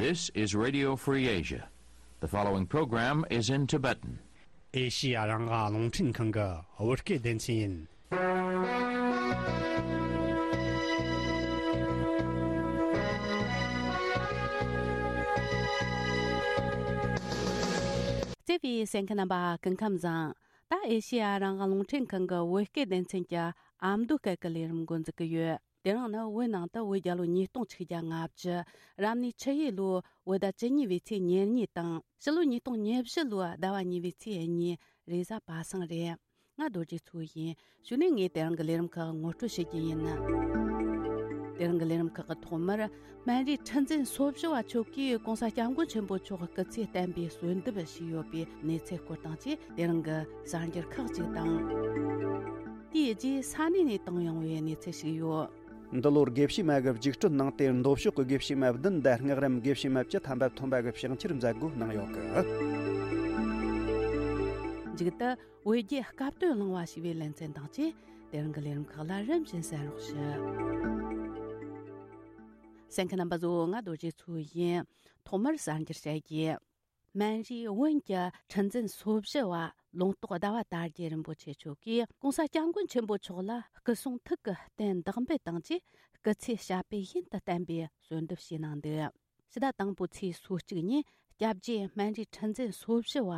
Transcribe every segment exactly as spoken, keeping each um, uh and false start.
This is Radio Free Asia. The following program is in Tibetan. ཨེ་ཤི་ཡ་རང་དབང་རླུང་འཕྲིན་ཁང་གི་བོད་སྐད་སྡེ་ཚན་ཡིན། བརྩེ་བའི་གསན་མཁན་རྣམ་པ་སྐུ་ཁམས་བཟང་། ད་ཨེ་ཤི་ཡ་རང་དབང་རླུང་འཕྲིན་ཁང་གི་བོད་སྐད་སྡེ་ཚན་གྱི་ཨ་མདོ་སྐད་ཀྱི་ལས་རིམ་འགོ་འཛུགས་ཀྱི་ཡོད། དེ་རིང་ནི་བོད་ནང་དུ་བོད་རྒྱལ་ལོ་ཉིས་སྟོང་ཆིག་བརྒྱ་ལྔ་བཅུ། རབ་གནས་ཆུ་ཡོས་ལོའི་བོད་ཟླ་བཅུ་གཉིས་པའི་ཚེས་ཉེར་གཉིས་དང་། ཕྱི་ལོ་ཉིས་སྟོང་ཉེར་བཞི་ལོའི་ཟླ་བ་གཉིས་པའི་ཚེས་གཉིས། རེས་གཟའ་པ་སངས་རེད། ང་རྡོ་རྗེ་མཚོ་ཡིན། གཞུག་ནས་ངས་དེ་རིང་གི་ལས་རིམ་ཁག་ངོ་སྤྲོད་བྱེད་རྒྱུ་ཡིན། དེ་རིང་གི་ལས་རིམ་ཁག་གི་ཐོག་མར། སྨན་རིའི་ཁྲི་འཛིན་སོ་བཞི་བ་མཆོག་གིས་གོང་ས་སྐྱབས་མགོན་ཆེན་པོ་མཆོག་སྐུ་ཚེ་བརྟན་པའི་གསོལ་འདེབས་ཞུས་ཡོད་པའི་གནས་ཚུལ་སྐོར་དང་བཅས། དེ་རིང་གི་གསར་འགྱུར་ཁག་ཅིག་དང་། དེའི་རྗེས་ས་གནས་ནས་བཏང་ཡོང་བའི་གནས་ཚུལ་ཞིག་ཡོད། འདི་ལོར་དགེ་བཤེས་མ་གི་རྒྱུགས་སྤྲོད་གནང་སྟེ། མདོ་ཕྱོགས་ཀྱི་དགེ་བཤེས་མ་བདུན་དང་། སྔགས་རམས་དགེ་བཤེས་མ་བཅུ་ཐམ་པ་ཐོན་པ་གི་ཕྱག་འཁྱེར་མཛད་སྒོ་གནང་ཡོད་གི། མཇུག་ཏུ། བོད་རྒྱའི་སྐབས་དོན་གླེང་བ་ཞེས་པའི་ལེ་ཚན་དང་བཅས། དེ་རིང་གི་ལས་རིམ་ཁག་ལ་རིམ་བཞིན་གསན་རོགས་ཞུ། གསན་མཁན་རྣམ་པ་ཚོ། ང་རྡོ་རྗེ་མཚོ་ཡིན། ཐོག་མར་གསར་འགྱུར་བཤད་རྒྱུ། སྨན་རིའི་བོན་གྱི་ཁྲི་འཛིན་སོ་བཞི་བ་ལུང་རྟོགས་ཟླ་བ་དར་རྒྱས་རིན་པོ་ཆེ་མཆོག་གིས་གོང་ས་སྐྱབས་མགོན་ཆེན་པོ་མཆོག་ལ་སྐུ་གསུང་ཐུགས་ཀྱི་རྟེན་བདག་འབུལ་དང་བཅས། སྐུ་ཚེ་ཞབས་པད་ཡུན་དུ་བརྟན་པའི་གསོལ་འདེབས་ཞུས་གནང་འདུག། ཕྱི་ཟླ་དང་པོའི་ཚེས་སོ་གཅིག་ཉིན། སྐྱབས་རྗེ་སྨན་རིའི་ཁྲི་འཛིན་སོ་བཞི་བ་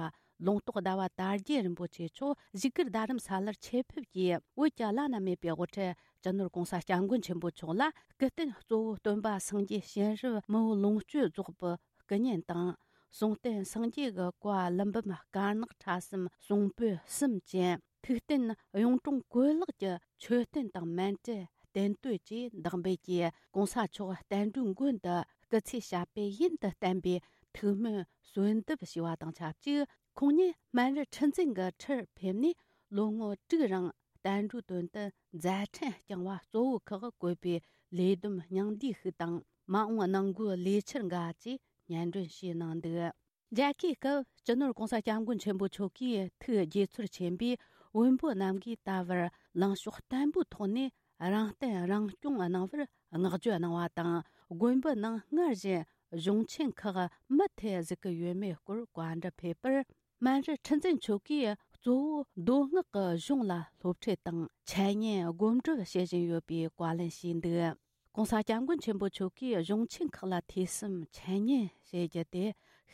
ལུང་རྟོགས་ཟླ་བ་དར་རྒྱས་རིན་པོ་ཆེ་མཆོག་བཞུགས་སྒར་རྡ་རམ་ས་ལར་ཆེད་ཕེབས་ཀྱིས། བོད་ཀྱི་བླ་ན་མེད་པའི་དབུ་ཁྲིད་སྤྱི་ནོར་གོང་ས་སྐྱབས་མགོན་ཆེན་པོ་མཆོག་ལ་སྐུ་རྟེན་གཙོ་བོ་སྟོན་པ་སངས་རྒྱས་སྤྱན་རབ་མི་བོ་ལོངས་སྤྱོད་རྫོགས་པའི་སྐུ་བརྙན་དང་། གསུང་རྟེན་སངས་རྒྱས་ཀྱི་བཀའ་ཀླུ་འབུམ་དཀར་ནག་ཕྲ་གསུམ་གསུང་པོད་གསུམ་ཅན། ཐུགས་རྟེན་གཡུང་དྲུང་བཀོད་ལེགས་ཀྱི་མཆོད་རྟེན་དང་མཎྜལ་རྟེན་བསྟོད་བཅས་བདག་འབུལ་གྱིས། གོང་ས་མཆོག་བསྟན་འགྲོའི་མགོན་དུ་སྐུ་ཚེ་ཞབས་པད་ཡུན་དུ་བརྟན་པའི་ཐུགས་སྨོན་གསོལ་འདེབས་ཞུས་པ་དང་ཆབས་ཅིག། ཁོང་ཉིད་སྨན་རི་ཁྲི་འཛིན་གྱི་ཁྲིར་ཕེབས་ནས། ལོ་ངོ་དྲུག་རིང་བསྟན་འགྲོའི་དོན་དུ་མཛད་འཕྲིན་བསྐྱངས་པ་གཙོ་བོ་ཁག་བཀོད་པའི་ལས་བསྡོམས་སྙིང་བསྡུས་ཤིག་དང་། མ་འོངས་གནང་སྒོའི་ལས་འཆར་འགའ་བཅས་སྙན་སྒྲོན་ཞུས་གནང་འདུག། མཇལ་ཁའི་སྐབས། སྤྱི་ནོར་གོང་ས་སྐྱབས་མགོན་ཆེན་པོ་མཆོག་གིས་ཐུགས་དགྱེས་ཚོར་ཆེན་པོས། བོན་པོ་རྣམས་ཀྱིས་ད་བར་ལངས་ཕྱོགས་བརྟན་པོའི་ཐོག་ནས་རང་བརྟན་རང་སྐྱོང་གནང་བར་བསྔགས་བརྗོད་གནང་བ་དང་། དགོན་པའི་ནང་སྔར་བཞིན་གཞུང་ཆེན་ཁག་མུ་མཐུད་བཞུགས་ཀྱི་ཡོད་མེད་སྐོར་བཀའ་འདྲི་ཕེབས་པར། སྨན་རི་ཁྲི་འཛིན་མཆོག་གིས་གཙོ་བོ་མདོ་སྔགས་ཀྱི་གཞུང་ལ་སློབ་ཁྲིད་དང་འཆད་ཉན་སྒོམ་སྒྲུབ་བྱེད་བཞིན་ཡོད་པའི་བཀའ་ལན་ཞུས་འདུག། གོང་ས་སྐྱབས་མགོན་ཆེན་པོ་མཆོག་གིས་གཞུང་ཆེན་ཁག་ལ་ཐོས་བསམ་འཆད་ཉན་བྱེད་རྒྱུ་དེ་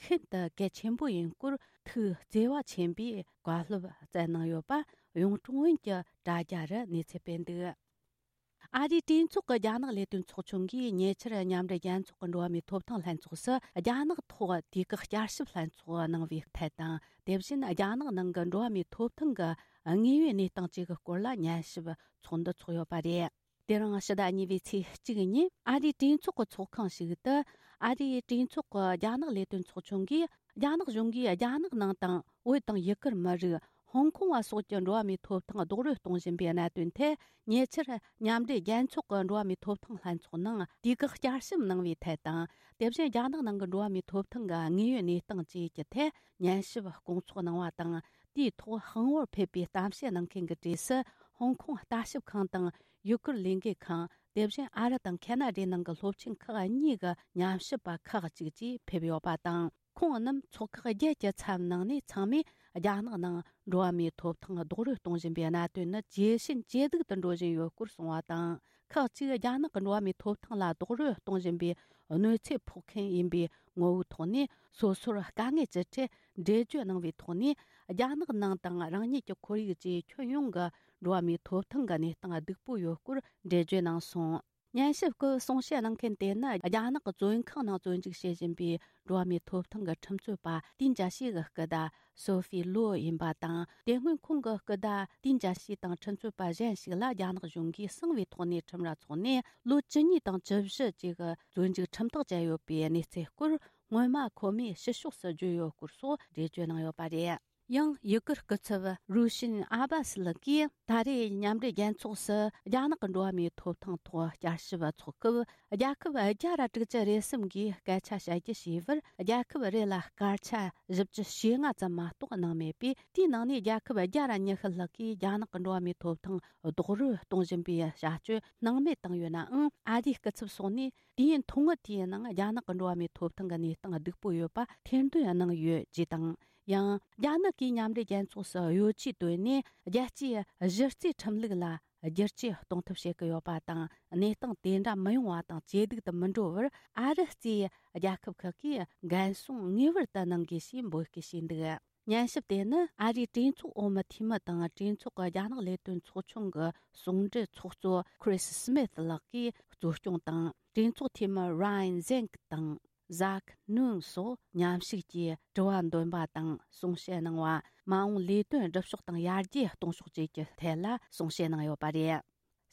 ཤིན་ཏུ་གལ་ཆེན་པོ་ཡིན་སྐོར་ཐུགས་བརྩེ་བ་ཆེན་པོས་བཀའ་སློབ་སྩལ་གནང་ཡོད་པ་གཡུང་དྲུང་བོན་གྱི་དྲ་རྒྱ་རུ་གནས་ཚུལ་སྤེལ་འདུག། ཨ་རིའི་གྲོས་ཚོགས་ཀྱི་རྒྱ་ནག་ལས་དོན་ཚོགས་ཆུང་གིས་ཉེ་ཆར་མཉམ་འབྲེལ་རྒྱལ་ཚོགས་ཀྱི་འགྲོ་བ་མིའི་ཐོབ་ཐང་ལྷན་ཚོགས་སུ་རྒྱ་ནག་ཐོག་དུས་བཀག་བསྐྱར་ཞིབ་ལྷན་ཚོགས་གནང་བའི་ཐད་དང་། དེ་བཞིན་རྒྱ་ནག་ནང་གི་འགྲོ་བ་མིའི་ཐོབ་ཐང་གི་དངོས་ཡོད་གནས་སྟངས་བཅས་ཀྱི་སྐོར་ལ་ཉན་ཞིབ་ཚོགས་འདུ་འཚོགས་ཡོད་པ་རེད། དེ་རིང་ཕྱི་ཟླ་གཉིས་པའི་ཚེས་གཅིག་ཉིན་ཨ་རིའི་གྲོས་ཚོགས་ཀྱི་ཚོགས་ཁང་ཞིག་ཏུ། ཨ་རིའི་གྲོས་ཚོགས་ཀྱི་རྒྱ་ནག་ལས་དོན་ཚོགས་ཆུང་གིས། རྒྱ་ནག་གཞུང་གིས་རྒྱ་ནག་ནང་དང་བོད་དང་ཡུ་གུར་མི་རིགས། ཧོང་ཀོང་བ་སོགས་ཀྱི་འགྲོ་བ་མིའི་ཐོབ་ཐང་རྡོག་རོལ་གཏོང་བཞིན་པའི་གནད་དོན་ཐད། ཉེ་ཆར་མཉམ་འབྲེལ་རྒྱལ་ཚོགས་ཀྱི་འགྲོ་བ་མིའི་ཐོབ་ཐང་ལྷན་ཚོགས་ནང་དུས་བཀག་བསྐྱར་ཞིབ་གནང་བའི་ཐད་དང་། དེ་བཞིན་རྒྱ་ནག་ནང་གི་འགྲོ་བ་མིའི་ཐོབ་ཐང་གི་དངོས་ཡོད་གནས་སྟངས་བཅས་ཀྱི་ཐད་ཉན་ཞིབ་སྐོང་ཚོགས་གནང་བ་དང་། དེའི་ཐོག་དཔང་པོར་ཕེབས་པའི་གཏམ་བཤད་གནང་མཁན་གྱི་གྲས་སུ། ཧོང་ཀོང་ལྟ་ཞིབ་ཁང་དང་ཡུ་གུར་ལས་འགུལ་ཁང་། དེ་བཞིན་ཨ་རི་དང་ཁེ་ན་ཌའི་ནང་གི་སློབ་ཆེན་ཁག་གཉིས་ཀྱི་ཉམས་ཞིབ་པ་ཁག་ཅིག་བཅས་ཕེབས་ཡོད་པ་དང་། ཁོང་རྣམས་ཚོགས་ཁག་བརྒྱད་ཀྱི་ཚབ་གནང་ནས། ཚང་མས་རྒྱ་ནག་ནང་འགྲོ་བ་མིའི་ཐོབ་ཐང་རྡོག་རོལ་གཏོང་བཞིན་པའི་གནད་དོན་ནི་ཇེ་ཞན་ཇེ་སྡུག་ཏུ་འགྲོ་བཞིན་ཡོད་སྐོར་གསུངས་པ་དང་། ཁག་ཅིག་རྒྱ་ནག་གི་འགྲོ་བ་མིའི་ཐོབ་ཐང་ལ་རྡོག་རོལ་གཏོང་བཞིན་པའི་གནོད་འཚེ་ཕོག་མཁན་ཡིན་པའི་ངོ་བོའི་ཐོག་ནས། སོ་སོར་དཀའ་ངལ་ཅི་འཕྲད་འགྲེལ་བརྗོད་གནང་བའི་ཐོག་ནས། རྒྱ་ནག་ནང་དང་རང་ཉིད་ཀྱི་ཁོར་ཡུག་བཅས་ཁྱོན་ཡོངས་ཀྱི་འགྲོ་བ་མིའི་ཐོབ་ཐང་གི་གནས་སྟངས་སྡུག་པོ་ཡོད་སྐོར་འགྲེལ་བརྗོད་གནང་སོང་། ཉན་ཞིབ་སྐབས་གསུང་བཤད་གནང་མཁན་དེ་ནི། རྒྱ་ནག་གི་བཙོན་ཁང་ནང་བཙོན་འཇུག་བྱེད་བཞིན་པའི་འགྲོ་བ་མིའི་ཐོབ་ཐང་གི་ཁྲིམས་རྩོད་པ་ཏིན་ཅཱ་ཤི་གི་སྐུ་ཟླ་སོ་ཧྥི་ལོ་ཡིན་པ་དང་། དེ་སྔོན་ཁོང་གི་སྐུ་ཟླ་ཏིན་ཅཱ་ཤི་དང་ཁྲིམས་རྩོད་པ་གཞན་ཞིག་ལ་རྒྱ་ནག་གཞུང་གིས་གསང་བའི་ཐོག་ནས་ཁྲིམས་ར་ཚོགས་ནས། ལོ་བཅུ་གཉིས་དང་བཅུ་བཞི་བཅས་ཀྱི་བཙོན་འཇུག་ཁྲིམས་ཐག་བཅད་ཡོད་པའི་གནས་ཚུལ་སྐོར། སྔོན་མ་ཁོ་མོས་ཕྱི་ཕྱོགས་སུ་བརྗོད་ཡོད་སྐོར་སོགས་འགྲེལ་བརྗོད་གནང་ཡོད་པ་རེད། ཡང་ཡི་གེར་སྐུ་ཚབ་རུ་ཤིན་ཨ་བ་སི་ལགས་ཀྱིས། ད་རེས་མཉམ་འབྲེལ་རྒྱལ་ཚོགས་སུ་རྒྱ་ནག་གི་འགྲོ་བ་མིའི་ཐོབ་ཐང་ཐོག་བསྐྱར་ཞིབ་ཚོགས་སྐབས། རྒྱལ་ཁབ་བརྒྱ་ར་དྲུག་ཅུ་རེ་གསུམ་གིས་སྐད་ཆ་བཤད་རྒྱུ་བྱས་པར། རྒྱལ་ཁབ་རེ་ལ་སྐར་ཆ་བཞི་བཅུ་ཞེ་ལྔ་ཙམ་མ་གཏོགས་གནང་མེད་པས། དེའི་ནང་ནས་རྒྱལ་ཁབ་བརྒྱ་ར་ཉི་ཤུ་ལྷག་གིས་རྒྱ་ནག་གི་འགྲོ་བ་མིའི་ཐོབ་ཐང་རྡོག་རོལ་གཏོང་བཞིན་པའི་བྱ་སྤྱོད་སྣང་མེད་བཏང་ཡོད་ནའང་། ཨ་རིའི་སྐུ་ཚབ་སོགས་ནས་དུས་ཡུན་ཐུང་ངུ་དེའི་ནང་རྒྱ་ནག་གི་འགྲོ་བ་མིའི་ཐོབ་ཐང་གི་གནས་སྟངས་སྡུག་པོ་ཡོད་པ་ཐེར་འདོན་གནང་ཡོད་ཅེས་དང་། ཡང་། རྒྱ་ནག་གིས་མཉམ་འབྲེལ་རྒྱལ་ཚོགས་སུ་གཡོ་ཇུས་བཏོན་ནས། རྒྱལ་སྤྱིའི་གཞི་རྩའི་ཁྲིམས་ལུགས་ལ་བསྒྱུར་བཅོས་གཏོང་ཐབས་བྱེད་ཀྱི་ཡོད་པ་དང་། གནས་སྟངས་དེ་འདྲ་མི་ཡོང་བ་དང་ཇེ་སྡུག་ཏུ་མི་འགྲོ་བར། ཨ་རི་གཙོས་རྒྱལ་ཁབ་ཁག་གིས་འགན་སྲུང་ངེས་པར་དུ་གནང་དགོས་ཞེས་འབོད་སྐུལ་བྱས་འདུག། ཉན་ཞིབ་དེ་ནི་ཨ་རིའི་གྲོས་ཚོགས་འོག་མའི་འཐུས་མི་དང་། གྲོས་ཚོགས་ཀྱི་རྒྱ་ནག་ལས་དོན་ཚོགས་ཆུང་གི་ཟུང་འབྲེལ་ཚོགས་གཙོ་Chris Smith ལགས་ཀྱིས་གཙོ་སྐྱོང་དང་། གྲོས་ཚོགས་འཐུས་མི་Ryan Zinke དང་Zach Nunn སོགས་མཉམ་ཞུགས་ཀྱིས་དྲི་བ་འདོན་པ་དང་། གསུང་བཤད་གནང་བ། མ་འོངས་ལས་དོན་སྒྲུབ་ཕྱོགས་དང་ཡར་རྒྱས་གཏོང་ཕྱོགས་བཅས་ཀྱི་ཐད་ལ་གསུང་བཤད་གནང་ཡོད་པ་རེད།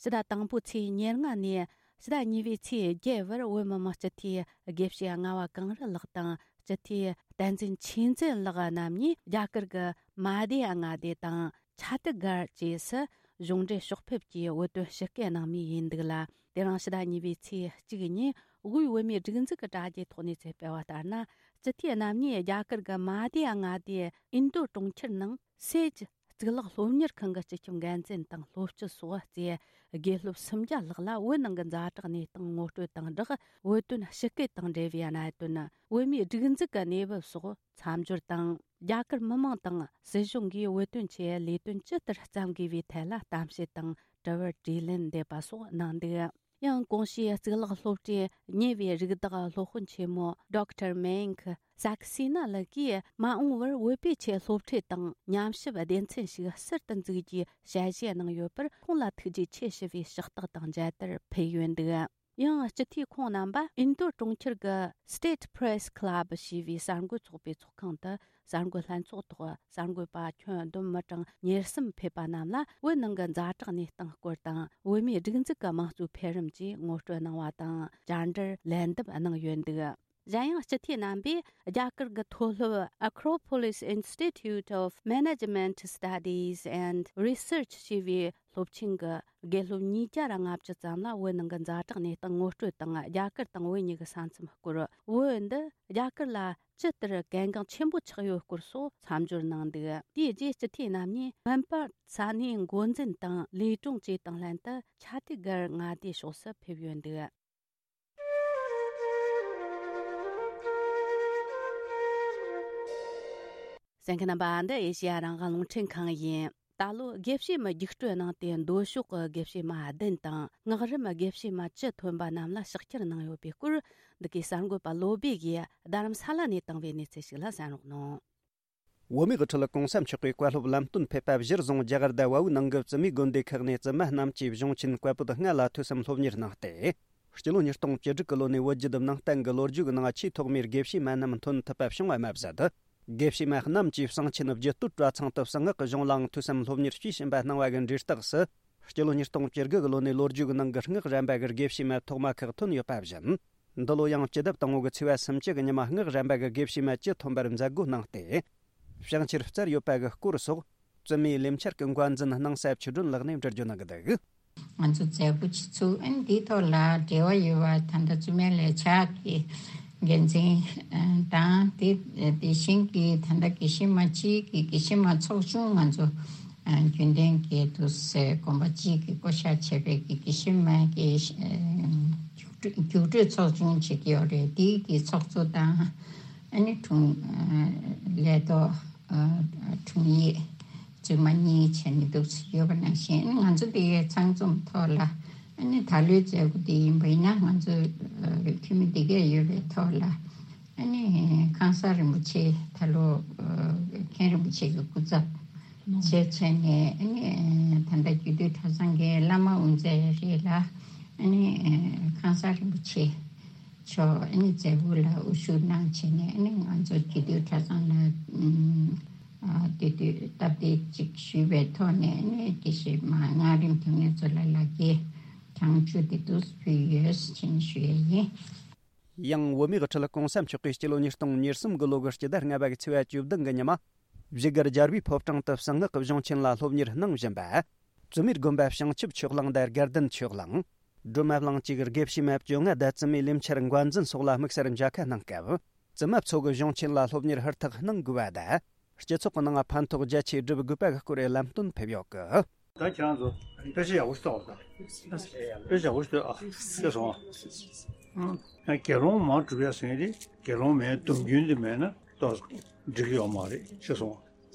ཕྱི་ཟླ་དང་པོའི་ཚེས་ཉེར་ལྔ་ནས་ཕྱི་ཟླ་གཉིས་པའི་ཚེས་བརྒྱད་བར། བོད་མི་མང་སྤྱི་འཐུས་དགེ་བཤེས་ལྔ་བ་གངས་རི་ལགས་དང་། སྤྱི་འཐུས་བསྟན་འཛིན་ཆོས་འཛིན་ལགས་རྣམ་གཉིས་རྒྱ་གར་གྱི་མ་སྡེ་མངའ་སྡེ་དང་། ཆ་ཏི་གར་བཅས་སུ་གཞུང་འབྲེལ་ཕྱོགས་ཕེབས་ཀྱིས་བོད་དོན་ཞིབ་སྐད་གནང་མུས་ཡིན་འདུག་ལ། དེ་རིང་ཕྱི་ཟླ་གཉིས་པའི་ཚེས་གཅིག་ཉིན་དབུས་བོད་མིའི་སྒྲིག་འཛུགས་ཀྱི་དྲ་རྒྱའི་ཐོག་ནས་ཚོད་སྤེལ་བ་ལྟར་ན། སྤྱི་འཐུས་རྣམ་གཉིས་རྒྱ་གར་གྱི་མ་སྡེ་མངའ་སྡེ་ཨིན་རྡུ་གྲོང་ཁྱེར་ནང་སེ་ཇི་གཙུག་ལག་སློབ་གཉེར་ཁང་གི་སྤྱི་ཁྱབ་འགན་འཛིན་དང་སློབ་སྤྱི་སོགས་བཅས་དགེ་སློབ་སུམ་བརྒྱ་ལྷག་ལ་བོད་ནང་གི་ཛ་དྲག་གནས་སྟངས་ངོ་སྤྲོད་དང་སྦྲགས། བོད་དོན་ཞིབ་སྐད་དང་འབྲེལ་བའི་གནད་དོན། བོད་མིའི་སྒྲིག་འཛུགས་ཀྱི་གནས་བབ་སོགས་མཚམས་སྦྱོར་དང་། རྒྱ་གར་མི་མང་དང་སྲིད་གཞུང་གིས་བོད་དོན་ཆེད་ལས་དོན་ཇི་ལྟར་བརྩམ་དགོས་པའི་ཐད་ལ་གཏམ་བཤད་དང་དྲི་བར་དྲིས་ལན་འདེབས་པ་སོགས་གནང་འདུག། ཡང་གོང་ཞུས་གཙུག་ལག་སློབ་གྲྭའི་ཉེ་བའི་རིགས་བདག་སློབ་དཔོན་ཆེན་མོ་Doctor Mayank Saxena ལགས་ཀྱིས། མ་འོངས་པར་བོད་པའི་ཆེད་སློབ་ཁྲིད་དང་ཉམས་ཞིབ་སྡེ་ཚན་ཞིག་གསར་དུ་འཛུགས་རྒྱུའི་ཞལ་བཞེས་གནང་ཡོད་པར། ཁོང་ལ་ཐུགས་རྗེ་ཆེ་ཞུ་བའི་ཕྱག་རྟགས་དང་མཇལ་དར་ཕུལ་ཡོད་འདུག། ཡང་སྤྱི་འཐུས་ཁོང་རྣམ་པ་ཨིན་རྡུ་གྲོང་ཁྱེར་གྱི་State Press Club ཞེས་པའི་གསར་འགོད་ཚོགས་པའི་ཚོགས་ཁང་དུ། གསར་འགོད་ལྷན་ཚོགས་ཐོག་གསར་འགོད་པ་ཁྱོན་བསྡོམས་མི་གྲངས་ཉེར་གསུམ་ཕེབས་པ་རྣམས་ལ། བོད་ནང་གི་ཛ་དྲག་གནས་སྟངས་སྐོར་དང་། བོད་མིའི་སྒྲིག་འཛུགས་ཀྱི་དམངས་གཙོའི་འཕེལ་རིམ་བཅས་ངོ་སྤྲོད་གནང་བ་དང་། བཅར་འདྲིར་ལན་འདེབས་གནང་ཡོད་འདུག། གཞན་ཡང་སྤྱི་འཐུས་རྣམ་པས་རྒྱ་གར་གྱི་མཐོ་སློབ་Acropolis Institute of Management Studies and Research ཞེས་པའི་སློབ་ཆེན་གྱི་དགེ་སློབ་ཉིས་བརྒྱ་ར་ལྔ་བཅུ་ཙམ་ལ་བོད་ནང་གི་ཛ་དྲག་གནས་སྟངས་ངོ་སྤྲོད་དང་། རྒྱ་གར་དང་བོད་གཉིས་ཀྱི་ས་མཚམས་སྐོར། བོད་འདི་རྒྱ་གར་ལ་ཇི་ལྟར་གལ་འགངས་ཆེན་པོ་ཆགས་ཡོད་སྐོར་སོགས་མཚམས་སྦྱོར་གནང་འདུག། དེའི་རྗེས་སྤྱི་འཐུས་རྣམ་གཉིས་སྨན་པ་ས་གནས་འགོ་འཛིན་དང་ལས་དྲུང་བཅས་དང་ལྷན་དུ་ཆ་ཏི་གར་མངའ་སྡེའི་ཕྱོགས་སུ་ཕེབས་ཡོད་འདུག། གསན་མཁན་རྣམ་པ། འདི་ཨེ་ཤེ་ཡ་རང་དབང་རླུང་འཕྲིན་ཁང་ཡིན། ད་ལོ་དགེ་བཤེས་མའི་རྒྱུགས་སྤྲོད་གནང་སྟེ། མདོ་ཕྱོགས་ཀྱི་དགེ་བཤེས་མ་བདུན་དང་། སྔགས་རིམ་དགེ་བཤེས་མ་བཅུ་ཐོན་པ་རྣམས་ལ་ཕྱག་འཁྱེར་གནང་ཡོད་པའི་སྐོར། འདི་གའི་གསར་འགོད་པ་བློ་སྦེ་གིས་རྡ་རམ་ས་ལ་ནས་བཏང་བའི་གནས་ཚུལ་ཞིག་ལ་གསན་རོགས་གནང་། བོད་མིའི་དབུ་ཁྲིད་གོང་ས་མཆོག་གིས་བཀའ་སློབ་ལམ་སྟོན་ཕེབས་པ་གཞིར་བཟུང་རྒྱ་གར་དང་བལ་ཡུལ་ནང་གི་བཙུན་མའི་དགོན་སྡེ་ཁག་ནས་བཙུན་མ་རྣམས་ཀྱིས་གཞུང་ཆེན་བཀའ་པོད་ལྔ་ལ་ཐོས་བསམ་སློབ་གཉེར་གནང་སྟེ། སྤྱི་ལོ་ཉིས་སྟོང་བཅུ་དྲུག་གི་ལོ་ནས་བོད་བརྒྱུད་ནང་བསྟན་གྱི་ལོ་རྒྱུས་ཀྱི་ནང་ཆེས་ཐོག་མའི་དགེ་བཤེས་མ་རྣམས་ཐོན་ཐུབ་པ་བྱུང་བ་མ་ཟད། དགེ་བཤེས་མ་རྣམས་ཀྱིས་གསང་ཆེན་རྒྱུད་སྟོད་གྲྭ་ཚང་དུ་གསང་སྔགས་ཀྱི་གཞུང་ལའང་ཐོས་བསམ་སློབ་གཉེར་བྱས་ཕྱིན་པ་སྣང་བ་གི་འབྲས་རྟགས་སུ། སྤྱི་ལོ་ཉིས་སྟོང་བཅུ་དགུ་གི་ལོ་ནས་ལོ་རྒྱུས་ཀྱི་ནང་གི་སྔགས་གཞན་པ་གི་དགེ་བཤེས་མ་ཐོག་མ་ཁག་ཐོན་ཡོད་པ་བཞིན། འདི་ལོ་ཡང་སྤྱི་ཟླ་དང་པོ་གི་ཚེས་པ་སུམ་ཅུ་གི་ཉི་མ་སྔགས་གཞན་པ་གི་དགེ་བཤེས་མ་བཅུ་ཐོན་པར་མཛད་སྒོ་གནང་སྟེ། བྱང་ཆེར་བསྩལ་ཡོད་པ་གི་སྐོར་སོགས། བཙུན་མའི་ལས་འཆར་གྱི་འགོ་འཛིན་སྣང་ས་ཆོས་སྒྲོན་ལགས་ནས་འགྲེལ་བརྗོད་གནང་གི་འདུག། ང་ཚོ་མཛད་སྒོ་བྱེད་ཚུལ་ཨ་ནི་འདིའི་ཐོག་ལ་འབྲེལ་བ་ཡོད་པ། ད་ལྟ་བཙུན་མའི་ལས་འཆར་གྱི་འགན་འཛིན་དང་། དེ་དེ་བཞིན་གྱི་ད་ལྟ་དགེ་བཤེས་མ་གཅིག་གི་དགེ་བཤེས་མ་ཚོགས་ཆུང་ང་ཚོ་རྒྱུན་ལྡན་གྱི་དུ་སེ་དགོན་པ་གཅིག་གི་བསྐོ་བཞག་བྱས་པའི་གི་དགེ་བཤེས་མ་གི་རྒྱུགས་སྤྲོད་ཚོགས་ཆུང་བྱེད་ཀྱི་ཡོད་རེད། དེའི་གི་ཚོགས་གཙོ་དང་ཨ་ནི་དྲུང་ལས་ཐོག་དྲུང་ཡིག་བཙུན་མ་གཉིས་བྱས་ནས་འདུག་ཡོད་པ་ནང་བཞིན། ང་ཚོ་འདི་ཚང་འཛོམས་ཐོག་ལ་ཨ་ནི་ད་ལོའི་མཛད་སྒོ་འདི་ཡིན་པ་ཡིན་ན། ང་ཚོ་འཐུས་མི་འདི་གས་ཡོད་པའི་ཐོག་ལ་ཨ་ནི་ཁང་གསར་རིན་པོ་ཆེ་ད་ལོ་མཁན་རིན་པོ་ཆེ་གི་སྐུ་ཚབ་བྱས་བྱས་ནས། ཨ་ནི་ད་ལྟ་རྒྱུད་སྟོད་གྲྭ་ཚང་གི་བླ་མ་དབུ་མཛད་རེད་ལ། ཨ་ནི་ཁང་གསར་རིན་པོ་ཆེ་མཆོག་ཨ་ནི་མཛད་སྒོ་ལ་དབུ་བཞུགས་གནང་བྱས་ནས། ཨ་ནི་ང་ཚོ་རྒྱུད་སྟོད་གྲྭ་ཚང་ལ་ཨ་དེ་དུས་སྟབས་བདེ་ཅིག་ཞུས་པའི་ཐོག་ནས། ཨ་ནི་དགེ་བཤེས་མ་སྔགས་རིམ་དེ་ངེད་ཚོ་ལ་ལག་འཁྱེར་གྲངས་བཅུ་དེ་འདུག་ཕུལ་ཡོད་ཟེར་ནས་ཞུ་ཡས་ཡིན། ཡང་བོད་མིའི་དབུ་ཁྲིད་གོང་ས་མཆོག་གིས་སྤྱི་ལོ་ཉིས་སྟོང་ཉེར་གསུམ་གི་ལོ་གི་སྤྱི་ཟླ་ལྔ་པ་གི་ཚེས་པ་བཅུ་བདུན་གི་ཉི་མ། བཞུགས་སྒར་རྒྱལ་བའི་ཕོ་བྲང་དུ་གསང་སྔགས་ཀྱི་གཞུང་ཆེན་ལ་སློབ་གཉེར་གནང་བཞིན་པ། བཙུན་མའི་དགོན་པ་བྱང་ཆུབ་ཆོས་གླིང་དང་དགའ་ལྡན་ཆོས་གླིང་། སྒྲོལ་མ་གླིང་བཅས་ཀྱི་དགེ་བཤེས་མ་བཅོ་ལྔ་དང་བཙུན་མའི་ལས་འཆར་འགོ་འཛིན་སོགས་ལ་དམིགས་བསལ་མཇལ་ཁ་གནང་སྐབས། བཙུན་མ་ཚོ་གི་གཞུང་ཆེན་ལ་སློབ་གཉེར་ཧུར་ཐག་གནང་དགོས་པ་དང་། སྤྱི་ཚོགས་ཀྱི་ནང་ཕན་ཐོགས་རྒྱ་ཆེ་སྒྲུབ་དགོས་པ་གི་སྐོར་ལམ་སྟོན་ཕེབས་ཡོད་སྐད། ད་ཁྱེད་རང་ཚོ་དཔེ་ཆ་ཡག་པོ་ཞིག་ལྟ་བ་དང་། དཔེ་ཆ་ཡག་པོ་ཞིག་ལྟོས་ཨ། ཤེས་སོང་ཨ། ཨ། དགེ་སློང་མ་སྒྲུབ་ཡ་ཟེར་མཁན་དེ་དགེ་སློང་མའི་སྡོམ་རྒྱུན་དེ་མེད་ན་ཏོག་ཙམ་འགྲིག་གི་ཡོད་མ་རེད། ཤེས་སོང་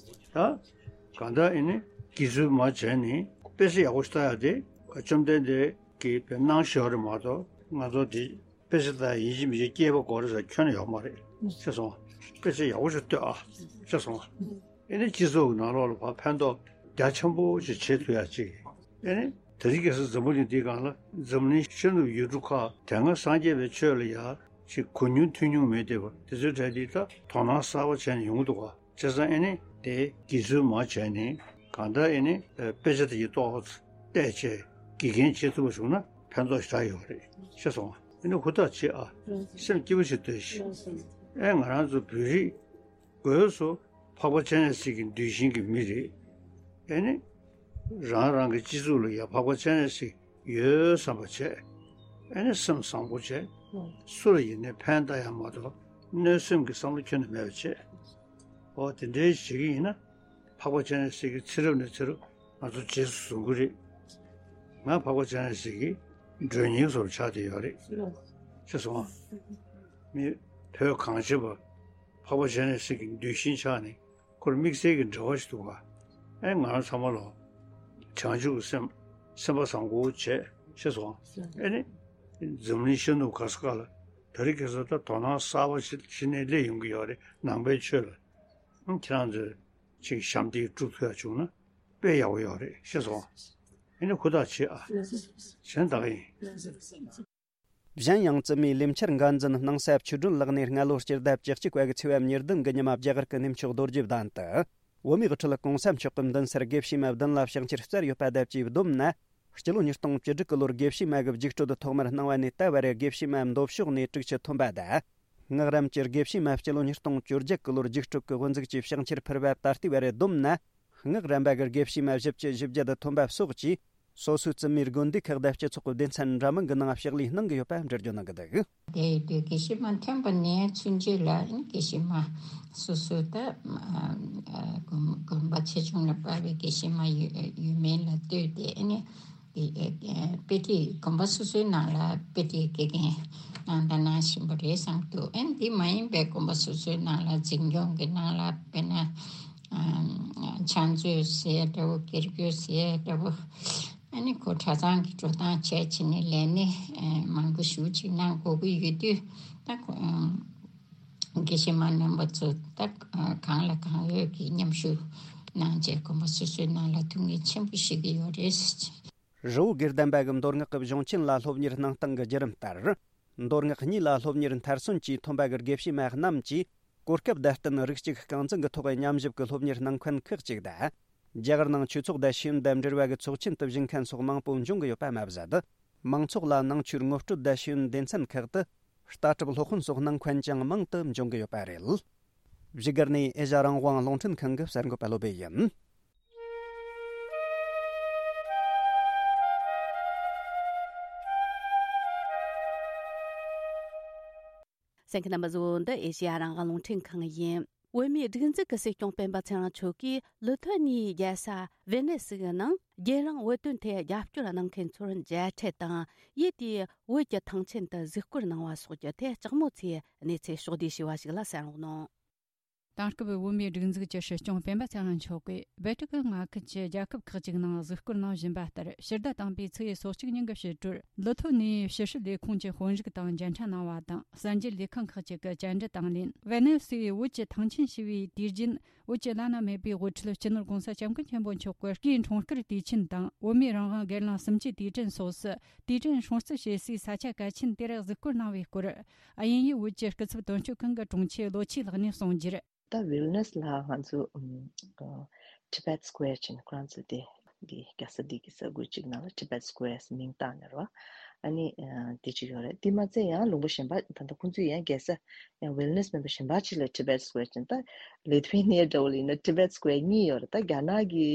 ཨ། ད་གང་ལྟར་ཨེ་ནི་དགེ་ཚུལ་མ་བྱས་ནས་དཔེ་ཆ་ཡག་པོ་ཞིག་ལྟ་ཡ་དེ་བཅོམ་ལྡན་འདས་ཀྱིས་དཔེ་གནང་བཞག་རེད་མ་གཏོགས། ང་ཚོ་དེ་དཔེ་ཆ་ལྟ་ཡིན་གཅིག་མིན་གཅིག་སྐྱེས་པ་དགོས་རེད་ཟེར་ཁྱོན་ནས་ཡོད་མ་རེད། ཤེས་སོང་ཨ། དཔེ་ཆ་ཡག་པོ་ཞིག་ལྟོས་ཨ། ཤེས་སོང་ཨ། ཨེ་ནི་སྤྱི་ཚོགས་ཀྱི་ནང་ལོགས་ལ་ཕར་ཕན་ཐོགས་རྒྱ་ཆེན་པོ་ཞིག་བྱེད་ཐུབ་ཡ་ཅིག་ཨེ་ནི་དེ་རིང་ཁ་སང་འཛམ་བུ་གླིང་འདིའི་སྒང་ལ་འཛམ་གླིང་ཤར་ནུབ་ཡུལ་གྲུ་ཁག་དེ་སྔ་སངས་རྒྱས་པའི་ཆོས་ལ་ཡ་ཅིག་གོ་མྱོང་ཐོས་མྱོང་མེད་བསྡད་པ་དེ་ཚོའི་གྲས་འདི་ད་དོ་སྣང་གསར་པ་བྱས་ནས་ཡོང་གི་འདུག་ག་བྱས་ཙང་ཨེ་ནི་དེ་དགེ་ཚུལ་མ་བྱས་ནས་གང་ལྟར་ཨེ་ནི་དཔེ་ཆ་དེ་ཡི་ཏོག་ཙམ་བལྟས་བྱས་དགེ་རྒན་བྱེད་ཐུབ་པ་བྱུང་ན་ཕན་ཐོགས་ཞེ་དྲག་ཡོད་རེད། ཤེས་སོང་ཨ། ཨེ་ནི་ཧུར་ཐག་བྱེད་ཨ། སེམས་སྐྱིད་པོ་ཞིག་གཏོད་ཤིག་ཨེ་ང་རང་ཚོ་བོད་རིགས་སྒོས་སུ་འཕགས་པ་སྤྱན་རས་གཟིགས་ཀྱི་གདུལ་ཞིང་གི་མི་རེད། ཨེ་ནི་རང་རང་གི་སྤྱི་ཚོགས་ལ་ཡ་འཕགས་པ་སྤྱན་རས་གཟིགས་ཡོད་བསམ་པ་བྱས། ཨེ་ནི་སེམས་བཟང་པོ་བྱས། སུ་ལ་ཡིན་ནའི་ཕན་བཏགས་ཡ་མ་གཏོགས་གནོད་སེམས་ཀྱི་བསམ་བློ་ཁྱོན་ནས་མེད་པ་བྱས། འོ་དེ་འདྲའི་བྱེད་ཀྱི་ཡིན་ན། འཕགས་པ་སྤྱན་རས་གཟིགས་ཀྱིས་ཚེ་རབས་ནས་ཚེ་རབས་ང་ཚོ་རྗེས་སུ་བཟུང་གི་རེད། ང་འཕགས་པ་སྤྱན་རས་གཟིགས་ཀྱི་མགྲོན་གཉེར་བཟོ་འདྲ་ཆགས་བསྡད་ཡོད་རེད། ཤེས་སོང་ཨ། མི་བོད་གངས་ཅན་པ་འཕགས་པ་སྤྱན་རས་གཟིགས་ཀྱི་གདུལ་ཞིང་ཆགས་ནས་ཁོར་དམིགས་བསལ་གྱི་འབྲེལ་བ་ཞིག་འདུག་ག་ཨེ་ང་རང་ཚང་མ་ལ་བྱང་ཆུབ་ཀྱི་སེམས་སེམས་པ་བཟང་པོ་བྱས། ཤེས་སོང་ཨ། ཨེ་ནི་འཛམ་གླིང་ཤར་ནུབ་ག་ས་ག་ལ་དེ་རིང་ཁ་སང་ད་དོ་སྣང་གསར་པ་ཞིག་གཞི་ནས་སླེབས་ཡོང་གི་ཡོད་རེད། ནང་པའི་ཆོས་ལ། ཁྱེད་རང་ཚོས་ཅིག་ཞབས་འདེགས་སྒྲུབ་ཐུབ་ཡ་བྱུང་ན་དཔེ་ཡག་པོ་ཡོད་རེད། ཤེས་སོང་། ཨེ་ནི་ཧུར་ཐག་བྱེད་ཨ། གཞན་དག་ཡིན། གཞན་ཡང་བཙུན་མའི་ལས་འཆར་འགན་འཛིན་སྣང་ས་ཆོས་སྒྲོན་ལགས་ནས་སྔ་ལོ་སྤྱི་ཟླ་བཅུ་གཅིག་པ་གི་ཚེས་པ་ཉེར་བདུན་གི་ཉི་མ་རྒྱ་གར་གྱི་གནས་མཆོག་རྡོ་རྗེ་གདན་དུ། བོད་མིའི་དབུ་ཁྲིད་གོང་ས་མཆོག་གི་མདུན་སར་དགེ་བཤེས་མ་བདུན་ལ་ཕྱག་འཁྱེར་བསྩལ་ཡོད་པ་དང་བཅས་བསྡོམས་ན། སྤྱི་ལོ་ཉིས་སྟོང་བཅུ་དྲུག་གི་ལོར་དགེ་བཤེས་མ་གི་རྒྱུགས་སྤྲོད་ཐོག་མར་གནང་བ་ནས་ད་བར་དགེ་བཤེས་མ་མདོ་ཕྱོགས་ནས་དྲུག་ཅུ་ཐོན་པ་དང་། སྔགས་རམས་ཀྱི་དགེ་བཤེས་མ་སྤྱི་ལོ་ཉིས་སྟོང་བཅོ་བརྒྱད་ཀྱི་ལོར་རྒྱུགས་སྤྲོད་ཀྱི་དབུ་འཛུགས་ཀྱིས་ཕྱག་འཁྱེར་ཕུལ་བ་ད་ལྟའི་བར་བསྡོམས་ན། སྔགས་རམས་པ་གི་དགེ་བཤེས་མ་བཞི་བཅུ་ཞེ་བརྒྱད་ཐོན་པ་སོགས་ཀྱིས་སོ་སོའི་བཙུན་མའི་དགོན་སྡེ་ཁག་དང་སྤྱི་ཚོགས་ཀྱི་སྡེ་ཚན་འདྲ་མིན་གྱི་ནང་ཕྱག་ལས་གནང་གི་ཡོད་པ་འགྲེལ་བརྗོད་གནང་གི་འདུག་དེ་ཡི་དུས་དགེ་བཤེས་མ་ཐོན་པ་ནས་ཚུན་ཆད་ལ་དགེ་བཤེས་མ་སོ་སོའི་ད་དགོན་པ་ཆེ་ཆུང་ལ་དཔག་པའི་དགེ་བཤེས་མ་ཡོད་མེད་ལ་ལྟོས་ཏེ་ཨ་ནི། དེ་དཔེ་ཁྲིད་དགོན་པ་སོ་སོའི་ནང་ལ་དཔེ་ཁྲིད་དགེ་རྒན་གནང་དང་གནང་བཞིན་པ་རེད་བསམ་འདུག་ཨ་ནི་འདི་མ་ཡིན་པའི་དགོན་པ་སོ་སོའི་ནང་ལ་འཛིན་སྐྱོང་གི་ནང་ལ་དཔེར་ན་ཕྱག་མཛོད་ཟེར་འདྲ་བོ་སྒེར་གྱོད་ཟེར་འདྲ་བོ་ཨ་ནི་ཁོ་གྲྭ་ཚང་གི་འགྲོ་སྟངས་བྱས་བྱས་ནས་ལས་གནས་མང་པོ་ཞེ་ཅིག་གནང་དགོས་ཀྱི་ཡོད་དུས་ད་ཁོ། དགེ་བཤེས་མ་རྣམ་པ་ཚོ་ད་གང་ལ་གང་འོས་ཀྱི་མཉམ་ཞུགས་གནང་རྗེས་དགོན་པ་སོ་སོའི་ནང་ལ་ཐུགས་ངལ་ཆེན་པོ་ཞིག་ཡོད་རེད། རི་བོ་དགེ་ལྡན་པ་གི་མདོ་སྔགས་ཀྱི་གཞུང་ཆེན་ལ་སློབ་གཉེར་གནང་སྟངས་ཀྱི་བརྒྱུད་རིམ་ལྟར། མདོ་སྔགས་གཉིས་ལ་སློབ་གཉེར་མཐར་སོན་གྱིས་ཐོན་པ་གི་དགེ་བཤེས་མ་རྣམས་ཀྱིས་གོ་སྐབས་དང་བསྟུན་རིགས་གཅིག་རྐང་འཛིན་གྱི་ཐོག་མཉམ་ཞུགས་ཀྱི་སློབ་གཉེར་གནང་མཁན་ཁག་ཅིག་དང་། རྒྱ་གར་ནང་ཆོས་ཚོགས་དང་ཤེས་ཡོན་དང་འབྲེལ་བ་གི་ཚོགས་ཆེན་དུ་ཞུགས་མཁན་སོགས་མང་པོ་འབྱུང་གི་ཡོད་པ་མ་ཟད། མང་ཚོགས་ལ་ནང་ཆོས་ངོ་སྤྲོད་དང་ཤེས་ཡོན་སྡེ་ཚན་ཁག་ཏུ་ལྟ་གྲུབ་སློབ་དཔོན་སོགས་གནང་མཁན་ཀྱང་མང་དུ་འབྱུང་གི་ཡོད་པ་རེད། བཞུགས་སྒར་ནས་ཨེ་ཤ་རང་དབང་རླུང་འཕྲིན་ཁང་གི་གསར་འགོད་པ་བློ་བྷེ་ཡིན། གསན་མཁན་རྣམ་པ་ཚོ། འདི་ཨེ་ཤེ་ཡ་རང་དབང་རླུང་འཕྲིན་ཁང་ཡིན། བོད་མིའི་སྒྲིག་འཛུགས་ཀྱི་སྲིད་སྐྱོང་སྤེན་པ་ཚེ་རིང་མཆོག་གིས་ལི་ཐོ་ནིའི་རྒྱལ་ས་ཝེ་ནེ་སི་ནང་རྒྱལ་རིང་བོད་དོན་ཐད་རྒྱབ་སྐྱོར་གནང་མཁན་ཚོར་མཇལ་འཕྲད་དང་། ཡུལ་དེའི་བོད་ཀྱི་ཐང་ཆེན་དུ་གཟིགས་སྐོར་གནང་བ་སོགས་ཀྱི་ཐད་དྲག་མོ་ཚོས་གནས་ཚུལ་ཕྱོགས་བསྡུས་ཞུས་པ་ཞིག་ལ་གསན་རོགས་གནང་། དེང་སྐབས་བོད་མིའི་སྒྲིག་འཛུགས་ཀྱི་སྲིད་སྐྱོང་སྤེན་པ་ཚེ་རིང་མཆོག་གིས་སྦལ་ཏི་ཀི་མངའ་ཁུལ་གྱི་རྒྱལ་ཁབ་ཁག་ཅིག་ནང་གཟིགས་སྐོར་གནང་བཞིན་པ་ལྟར། ཕྱི་ཟླ་དང་པོའི་ཚེས་སོ་གཅིག་ཉིན་གྱི་ཕྱི་དྲོར་ལི་ཐོ་ནིའི་ཕྱི་སྲིད་ལས་ཁུངས་ཀྱི་དཔོན་རིགས་དང་མཇལ་འཕྲད་གནང་བ་དང་། གསར་འགྱུར་ལས་ཁང་ཁག་ཅིག་གི་བཅར་འདྲི་དང་ལེན། ཝེ་ནེ་སིའི་བོད་ཀྱི་ཐང་ཆེན་ཞེས་པའི་དུས་རྒྱུན་བོད་ཀྱི་བླ་ན་མེད་པའི་དབུ་ཁྲིད་སྤྱི་ནོར་༸གོང་ས་༸སྐྱབས་མགོན་ཆེན་པོ་མཆོག་གི་སྐུའི་འཁྲུངས་སྐར་དུས་ཆེན་དང་། བོད་མིའི་རང་དབང་སྒེར་ལངས་གསུམ་བཅུའི་དུས་དྲན་སོགས་སུ་དུས་དྲན་སྲུང་བརྩི་བྱེད་སའི་ས་ཆ་གལ་ཆེན་དེར་གཟིགས་སྐོར་གནང་བའི་སྐོར། དབྱིན་ཡུལ་བོད་ཀྱི་སྐུ་ཚབ་དོན་གཅོད་ཁང་གི་དྲུང་ཆེ་ལོ་ཆོས་ལགས་ནས་གསུངས་རྒྱུར། ད་ཝིལ་ནེ་སི་ལ་ང་ཚོ་ཨམ་ཨ་Tibet Square ཅེས་ནས་ཁོ་རང་ཚོ་དེ་འདི་རྒྱལ་ས་འདི་གི་ས་ཁུལ་གཅིག་ནང་ལ་Tibet Square ཟེར་མིང་བཏགས་ནས་རེད་བ། ཨ་ནི་ཨ་དེ་གཅིག་ཡོད་རེད། དེ་མ་ཚད་ཡང་ལུང་པ་གཞན་པ་ད་ལྟ་ཁོང་ཚོས་ཡང་རྒྱལ་ས་ཡང་ཝེལ་ནེ་སི་མེམ་བར་གཞན་པ་གཅིག་ལ་Tibet Square ཅན། ད་Lithuania འདྲ་བོ་ལ་ཡིན་ན་Tibet Square གཉིས་ཡོད་རེད། ད་རྒྱ་ནག་གི་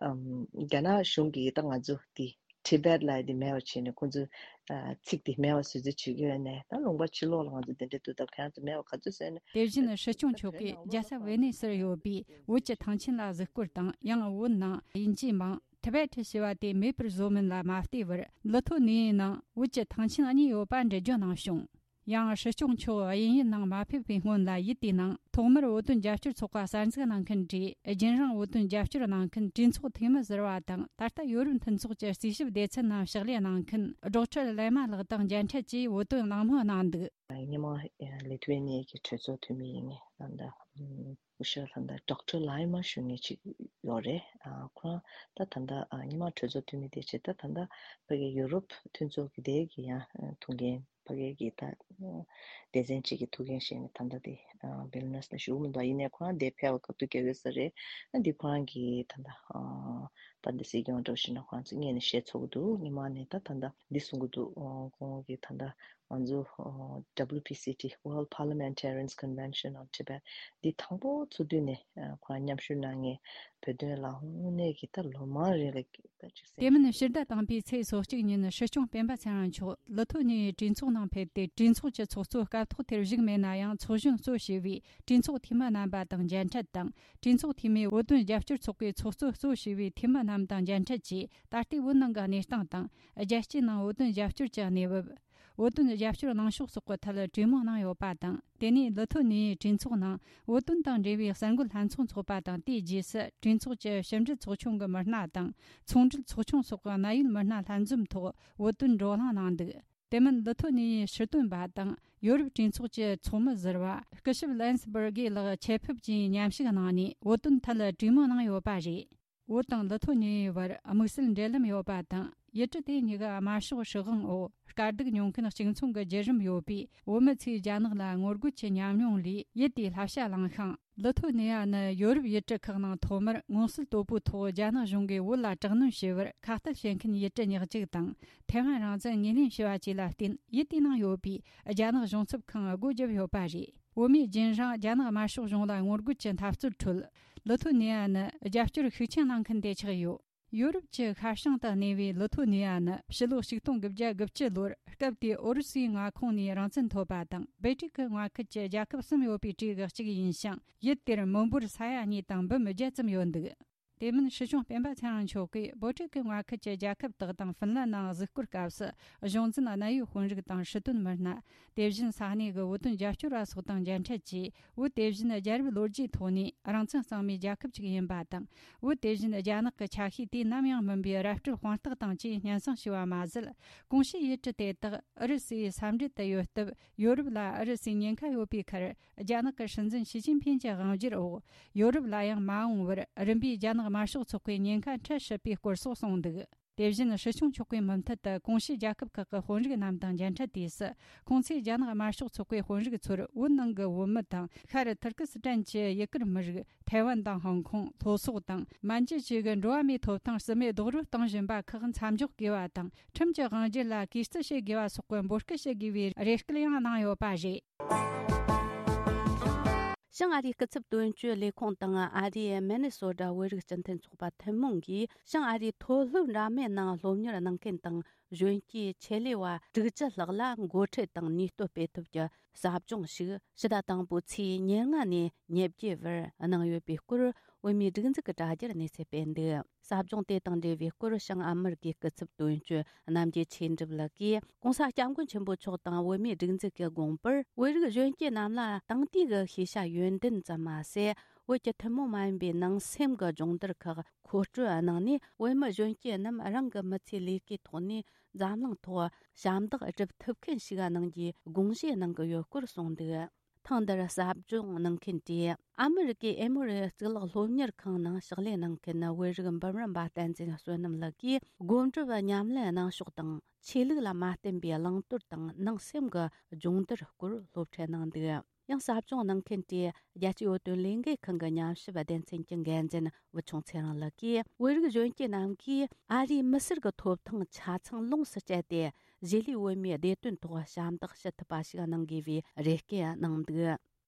ཨམ་རྒྱ་ནག་གཞུང་གིས་ད་ང་ཚོ་དེ་Tibet ལབ་དེ་མེད་པ་བྱས་ནས་ཁོང་ཚོས་ཨ་ཚིག་དེ་མེད་པ་བཟོ་རྩིས་བྱེད་ཀྱི་ཡོད་ནས། ད་ལུང་པ་ཕྱི་ལོགས་ལ་ང་ཚོ་དེ་འདྲ་འདུག་ད་ཁྱེད་རང་ཚོ་མེད་པ་ག་ཚོད་བཟོས་ནས། དེ་བཞིན་སྲིད་སྐྱོང་མཆོག་གིས་རྒྱལ་ས་ཝེ་ནེ་སིར་ཡོད་པའི་བོད་ཀྱི་ཐང་ཆེན་ལ་གཟིགས་སྐོར་དང་། ཡང་བོད་ནང་དབྱིན་ཇིའི་མིང་Tibet ཞེས་པ་དེ་མེད་པར་བཟོ་མིན་ལ་མ་བལྟས་པར། ལི་ཐོ་ནི་ཡའི་ནང་བོད་ཀྱི་ཐང་ཆེན་གཉིས་ཡོད་པ་འགྲེལ་བརྗོད་གནང་བྱུང་། ཡང་སྲིད་སྐྱོང་མཆོག་དབྱིན་ཡུལ་ནང་མ་ཕེབས་པའི་སྔོན་ལ། ཡུལ་དེའི་ནང་ཐོག་མར་བོད་དོན་རྒྱབ་སྐྱོར་ཚོགས་པ་གསར་འཛུགས་གནང་མཁན་གྱིས། རྒྱུན་རིང་བོད་དོན་རྒྱབ་སྐྱོར་གནང་མཁན་གྲོས་ཚོགས་འཐུས་མི་ཟུར་པ་དང་། ད་ལྟ་ཡོ་རོབ་མཐུན་ཚོགས་ཀྱི་རྩིས་ཞིབ་སྡེ་ཚན་ནང་ཕྱག་ལས་གནང་མཁན་ཌོག་ཊར་ལེ་མ་ལགས་དང་མཇལ་འཕྲད་ཀྱིས་བོད་དོན་གླེང་མོལ་གནང་འདུག། སྔོན་མ་ལི་ཐུ་ཝེ་ནི་ཡ་གི་གྲོས་ཚོགས་འཐུས་མི་ཡིན་ངེས། ད་ལྟ་ཨུམ་སྐུ་ཞབས་ད་ལྟ་ཌོག་ཊར་ལའི་མ་ཞུ་མཁན་ཅིག་ཡོད་རེད། ཨ་ཁོ་རང་ད་ད་ལྟ་ཨ་སྔོན་མ་གྲོས་ཚོགས་འཐུས་མི་དེ་བྱས། ད་ད་ལྟ་ཕ་གི་ཡུ་རོབ་མཐུན་ཚོགས་ཀྱི་དེ་གི་ཡང་ཨ་ཐུགས་འགན། ཕ་གི་གི་ད་ཨ་སྡེ་ཚན་གཅིག་གི་ཐུགས་འགན་བཞེས་ནས་ད་ལྟ་དེ་ཨ་ཝེལ་ནེ་སི་ལ་བཞུགས་མི་འདུག། ཡིན་ནའི་ཁོ་རང་དེ་ཕེབས་པ་སྐབས་དུས་རྒྱག་ཡོད་ས་རེད། ཨ་འདི་ཁོ་རང་གི་ད་ལྟ་ཨ་ད་འདི་སྲིད་སྐྱོང་འདྲ་བོ་ཞིག་ན་ཁོ་རང་ཚོ་སྔོན་ནས་བཤད་ཚོགས་འདུག། སྔོན་མ་ནས་ད་ད་ལྟ་འདི་གསུང་གི་འདུག། ཨ་ཁོང་གི་ད་ལྟ་ང་ཚོ་ཨ་W P C T, World Parliamentarians Convention on Tibet འདི་དང་པོ་ཚོགས་དུས་ནས་ཨ་ཁོ་རང་མཉམ་ཞུགས་གནང་མཁན་བོད་དོན་ལ་དངོས་གནས་ཀྱི་ད་ལོ་མང་རིང་ལ་ད་ཅིག་སེམས། དེ་མིན་ཕྱི་ཟླ་དང་པོའི་ཚེས་སོ་གཅིག་ཉིན་སྲིད་སྐྱོང་སྤེན་པ་ཚེ་རིང་མཆོག་ལི་ཐོ་ནི་ཡའི་གྲོས་ཚོགས་ནང་ཕེབས་ཏེ། གྲོས་ཚོགས་ཀྱི་ཚོགས་གཙོ་སྐབས་ཐོག་དེར་བཞུགས་མེད་ན་ཡང་། ཚོགས་གཞོན་གཙོ་བྱས་པའི་གྲོས་ཚོགས་འཐུས་མི་རྣམ་པ་དང་མཇལ་འཕྲད་དང་། གྲོས་ཚོགས་འཐུས་མིས་བོད་དོན་རྒྱབ་སྐྱོར་ཚོགས་པའི་ཚོགས་གཙོ་གཙོ་བྱས་པའི་འཐུས་མི་རྣམས་དང་མཇལ་འཕྲད་ཀྱིས། ད་ལྟའི་བོད་ནང་གི་གནས་སྟངས་དང་། རྒྱལ་སྤྱིའི་ནང་བོད་དོན་རྒྱབ་སྐྱོར་གྱི་གནས་བབ། བོད་དོན་རྒྱབ་སྐྱོར་གནང་ཕྱོགས་སོགས་ཀྱི་ཐད་གྲོས་མོལ་གནང་ཡོད་པ་དང་། དེ་ནས་ལི་ཐོ་ནི་ཡའི་གྲོས་ཚོགས་ནང་བོད་དོན་དང་འབྲེལ་བའི་གསར་འགོད་ལྷན་ཚོགས་འཚོགས་པ་དང་། དེའི་རྗེས་སུ་གྲོས་ཚོགས་ཀྱི་ཕྱི་འབྲེལ་ཚོགས་ཆུང་གི་མི་སྣ་དང་། ཚོང་འབྲེལ་ཚོགས་ཆུང་སོགས་ཀྱི་གནད་ཡོད་མི་སྣ་ལྷན་འཛོམས་ཐོག་བོད་དོན་བགྲོ་གླེང་གནང་འདུག། དེ་མིན་ལི་ཐོ་ནི་ཡའི་ཕྱིར་དོན་པ་དང་ཡོ་རོབ་གྲོས་ཚོགས་ཀྱི་ཚོགས་མི་ཟུར་པ་སྐུ་ཞབས་ལན་སི་བར་གྷི་ལགས་ཆེད་ཕེབས་ཀྱིས་མཉམ་ཞུགས་གནང་ནས་བོད་དོན་ཐད་གྲོས་མོལ་གནང་ཡོད་པ་རེད། བོད་དང་ལི་ཐོ་ནི་ཡའི་བར་དམིགས་བསལ་འབྲེལ་ལམ་ཡོད་པ་དང་། ཡུལ་གྲུ་དེ་གཉིས་ཀ་དམར་ཤོག་སྲིད་དབང་འོག་དཀའ་སྡུག་མྱོང་མཁན་གཅིག་མཚུངས་ཀྱི་བརྒྱུད་རིམ་ཡོད་པས། བོད་མི་ཚོས་རྒྱ་ནག་ལ་ངོ་རྒོལ་གྱི་ཉམས་མྱོང་ལས་ཡུལ་དེའི་བསླབ་བྱ་བླངས་ཤིང་། ལི་ཐོ་ནི་ཡ་ནི་ཡོ་རོབ་ཡུལ་གྲུ་ཁག་ནང་ཐོག་མར་མངོན་གསལ་དོད་པོའི་ཐོག་རྒྱ་ནག་གཞུང་གིས་བོད་ལ་དྲག་གནོན་བྱས་པར་ཁ་གཏད་བྱེད་མཁན་ཡུལ་གྲུ་ཉག་གཅིག་དང་། ཐའེ་ཝན་རང་བཙན་ངོས་ལེན་བྱས་པ་བཅས་ལ་བརྟེན། ཡུལ་དེའི་ནང་ཡོད་པའི་རྒྱ་ནག་གཞུང་ཚབ་ཁང་སྒོ་བརྒྱབ་ཡོད་པ་རེད། བོད་མིས་རྒྱུན་རིང་རྒྱ་ནག་དམར་ཤོག་གཞུང་ལ་ངོ་རྒོལ་གྱི་འཐབ་རྩོད་ཁྲོད། ལི་ཐོ་ནི་ཡ་ནི་རྒྱབ་སྐྱོར་ཤུགས་ཆེན་གནང་མཁན་དེ་ཆགས་ཡོད། ཡོ་རོབ་ཀྱི་ཤར་བྱང་དུ་གནས་པའི་ལི་ཐོ་ནི་ཡ་ནི་ཕྱི་ལོ་ཆིག་སྟོང་དགུ་བརྒྱ་དགུ་བཅུ་ལོར་སྐབས་དེའི་ཨུ་རུ་སུའི་མངའ་ཁོངས་ནས་རང་བཙན་ཐོབ་པ་དང་། སྦལ་ཏིག་གི་མངའ་ཁུལ་གྱི་རྒྱལ་ཁབ་གསུམ་ཡོད་པའི་གྲས་ཀྱི་གཅིག་ཡིན་ཞིང་། ཡུལ་དེར་མི་འབོར་ས་ཡ་གཉིས་དང་འབུམ་བརྒྱད་ཙམ་ཡོད་འདུག། དེ་མིན་སྲིད་སྐྱོང་སྤེན་པ་ཚེ་རིང་མཆོག་གིས་སྦལ་ཏིག་གི་མངའ་ཁུལ་གྱི་རྒྱལ་ཁབ་དག་དང་ཧྥིན་ལན་ནང་གཟིགས་སྐོར་སྐབས་སུ། གཞུང་འཛིན་གནད་ཡོད་དཔོན་རིགས་དང་སྲིད་དོན་མི་སྣ། དེ་བཞིན་ས་གནས་ཀྱི་བོད་དོན་རྒྱབ་སྐྱོར་བ་སོགས་དང་མཇལ་འཕྲད་ཀྱིས། བོད་དེ་བཞིན་རྒྱལ་རབས་ལོ་རྒྱུས་ཐོག་ནས་རང་བཙན་གཙང་མའི་རྒྱལ་ཁབ་ཅིག་ཡིན་པ་དང་། བོད་དེ་བཞིན་རྒྱ་ནག་གི་ཆ་ཤས་དུས་ནམ་ཡང་མིན་པའི་ར་སྤྲོད་དཔང་རྟགས་དང་བཅས་སྙན་སེང་ཞུས་པ་མ་ཟད། གོང་ཞུས་ཡུལ་གྲུ་དེ་དག་ཨུ་རུ་སུའི་ས་འབྲེལ་དུ་ཡོད་སྟབས། ཡོ་རོབ་ལ་ཨུ་རུ་སུའི་ཉེན་ཁ་ཡོད་པའི་ཁར། རྒྱ་ནག་གི་སྲིད་འཛིན་ཞི་ཅིན་ཕིན་གྱི་དབང་སྒྱུར་འོག་ཡོ་རོབ་ལ་ཡང་མ་འོངས་པར་རིམ་པས་རྒྱ་ནག་དམར་ཤོག་ཚོགས་པའི་ཉེན་ཁ་འཕྲད་སྲིད་པའི་སྐོར་སོགས་གསུངས་འདུག། དེ་བཞིན་སྲིད་སྐྱོང་མཆོག་གིས་མུ་མཐུད་དུ་གོང་ཞུས་རྒྱལ་ཁབ་ཁག་གི་དཔོན་རིགས་རྣམས་དང་མཇལ་འཕྲད་དུས་སུ། ཁོང་ཚོས་རྒྱ་ནག་དམར་ཤོག་ཚོགས་པའི་དཔོན་རིགས་ཚོར་བོད་ནང་གི་བོད་མི་དང་། ཤར་ཐུར་ཀི་སི་ཐན་གྱི་ཡུ་གུར་མི་རིགས། ཐའེ་ཝན་དང་ཧོང་ཀོང་། ལྷོ་སོག་དང་། མན་ཇུ་བཅས་ཀྱི་འགྲོ་བ་མིའི་ཐོབ་ཐང་། རྩིས་མེད་རྡོག་རོལ་གཏོང་བཞིན་པ་ཁག་མཚམས་འཇོག་དགོས་པ་དང་། ཁྲིམས་ཀྱི་དབང་སྒྱུར་ལ་གུས་བརྩི་བྱེད་དགོས་པ་སོགས་ཀྱི་འབོད་སྐུལ་བྱེད་དགོས་པའི་རེ་སྐུལ་ཡང་གནང་ཡོད་པ་རེད། བྱང་ཨ་རིའི་སྐུ་ཚབ་དོན་གཅོད་ལས་ཁུངས་དང་ཨ་རིའི་མི་ནི་སོ་ཊ་བོད་རིགས་སྤྱི་མཐུན་ཚོགས་པ་ཐུན་མོང་གིས། བྱང་ཨ་རིའི་མཐོ་སློབ་འདྲ་མིན་ནང་སློབ་གཉེར་གནང་མཁན་དང་གཞོན་སྐྱེས་ཆེད་ལས་པ་དྲུག་ཅུ་ལྷག་ལ་འགོ་ཁྲིད་དང་ནུས་སྟོབས་སྤེལ་ཐབས་ཀྱི་ཟབ་སྦྱོང་ཞིག་ཕྱི་ཟླ་དང་པོའི་ཚེས་ཉེར་ལྔ་ནས་ཉེར་བརྒྱད་བར་གནང་ཡོད་པའི་སྐོར། བོད་མིའི་སྒྲིག་འཛུགས་ཀྱི་དྲ་རྒྱར་གནས་ཚུལ་སྤེལ་འདུག། ཟབ་སྦྱོང་དེ་དང་འབྲེལ་བའི་སྐོར། བྱང་ཨ་མི་རི་ཀའི་སྐུ་ཚབ་དོན་གཅོད་རྣམ་རྒྱལ་ཆོས་འགྲུབ་ལགས་ཀྱིས། ྋགོང་ས་ྋསྐྱབས་མགོན་ཆེན་པོ་མཆོག་དང་བོད་མིའི་སྒྲིག་འཛུགས་ཀྱི་དགོངས་པར། བོད་རིགས་གཞོན་སྐྱེས་རྣམས་ལ་དེང་དུས་ཀྱི་ཤེས་བྱ་ཡོན་ཏན་ཙམ་མ་ཟད། བོད་ཀྱི་ཐུན་མོང་མ་ཡིན་པའི་ནང་སེམས་ཀྱི་སྦྱོང་བརྡར་ཁག་མཁོ་སྤྲོད་གནང་ནས། བོད་མི་གཞོན་སྐྱེས་རྣམས་རང་གི་མི་ཚེའི་ལས་ཀའི་ཐོག་ནས་འཛམ་གླིང་ཐོག་ཞབས་འདེགས་སྒྲུབ་ཐུབ་མཁན་ཞིག་གནང་རྒྱུའི་དགོངས་བཞེས་གནང་གི་ཡོད་སྐོར་གསུངས་འདུག། ཐེངས་འདིར་ཟབ་སྦྱོང་གནང་མཁན་དེ། ཨ་མི་རི་ཀའི་ཨེ་མོ་རི་གཙུག་ལག་སློབ་གཉེར་ཁང་ནང་ཕྱག་ལས་གནང་མཁན་བོད་རིགས་འབུམ་རམས་པ་བསྟན་འཛིན་བསོད་ནམས་ལགས་ཀྱིས། སྒོམ་སྒྲུབ་ཉམས་ལེན་གནང་ཕྱོགས་དང་། ཆོས་ལུགས་ལ་མ་བརྟེན་པའི་བླང་དོར་དང་ནང་སེམས་ཀྱི་སྦྱོང་བརྡར་སྐོར་སློབ་ཁྲིད་གནང་འདུག། ཡང་ཟབ་སྦྱོང་གནང་མཁན་དེ་རྒྱལ་སྤྱིའི་བོད་དོན་ལས་འགུལ་ཁང་གི་ཉམས་ཞིབ་སྡེ་ཚན་གྱི་འགན་འཛིན་བུ་ཆུང་ཚེ་རིང་ལགས་ཀྱིས། བོད་རིགས་གཞོན་སྐྱེས་རྣམས་ཀྱིས་ཨ་རིའི་མི་སེར་གྱི་ཐོབ་ཐང་ཆ་ཚང་ལོངས་སུ་སྤྱད་དེ། གཞིས་ལུས་བོད་མིའི་བདེ་དོན་ཐོག་ཞབས་འདེགས་ཞུ་ཐུབ་པ་ཞིག་གནང་དགོས་པའི་རེ་སྐུལ་གནང་འདུག་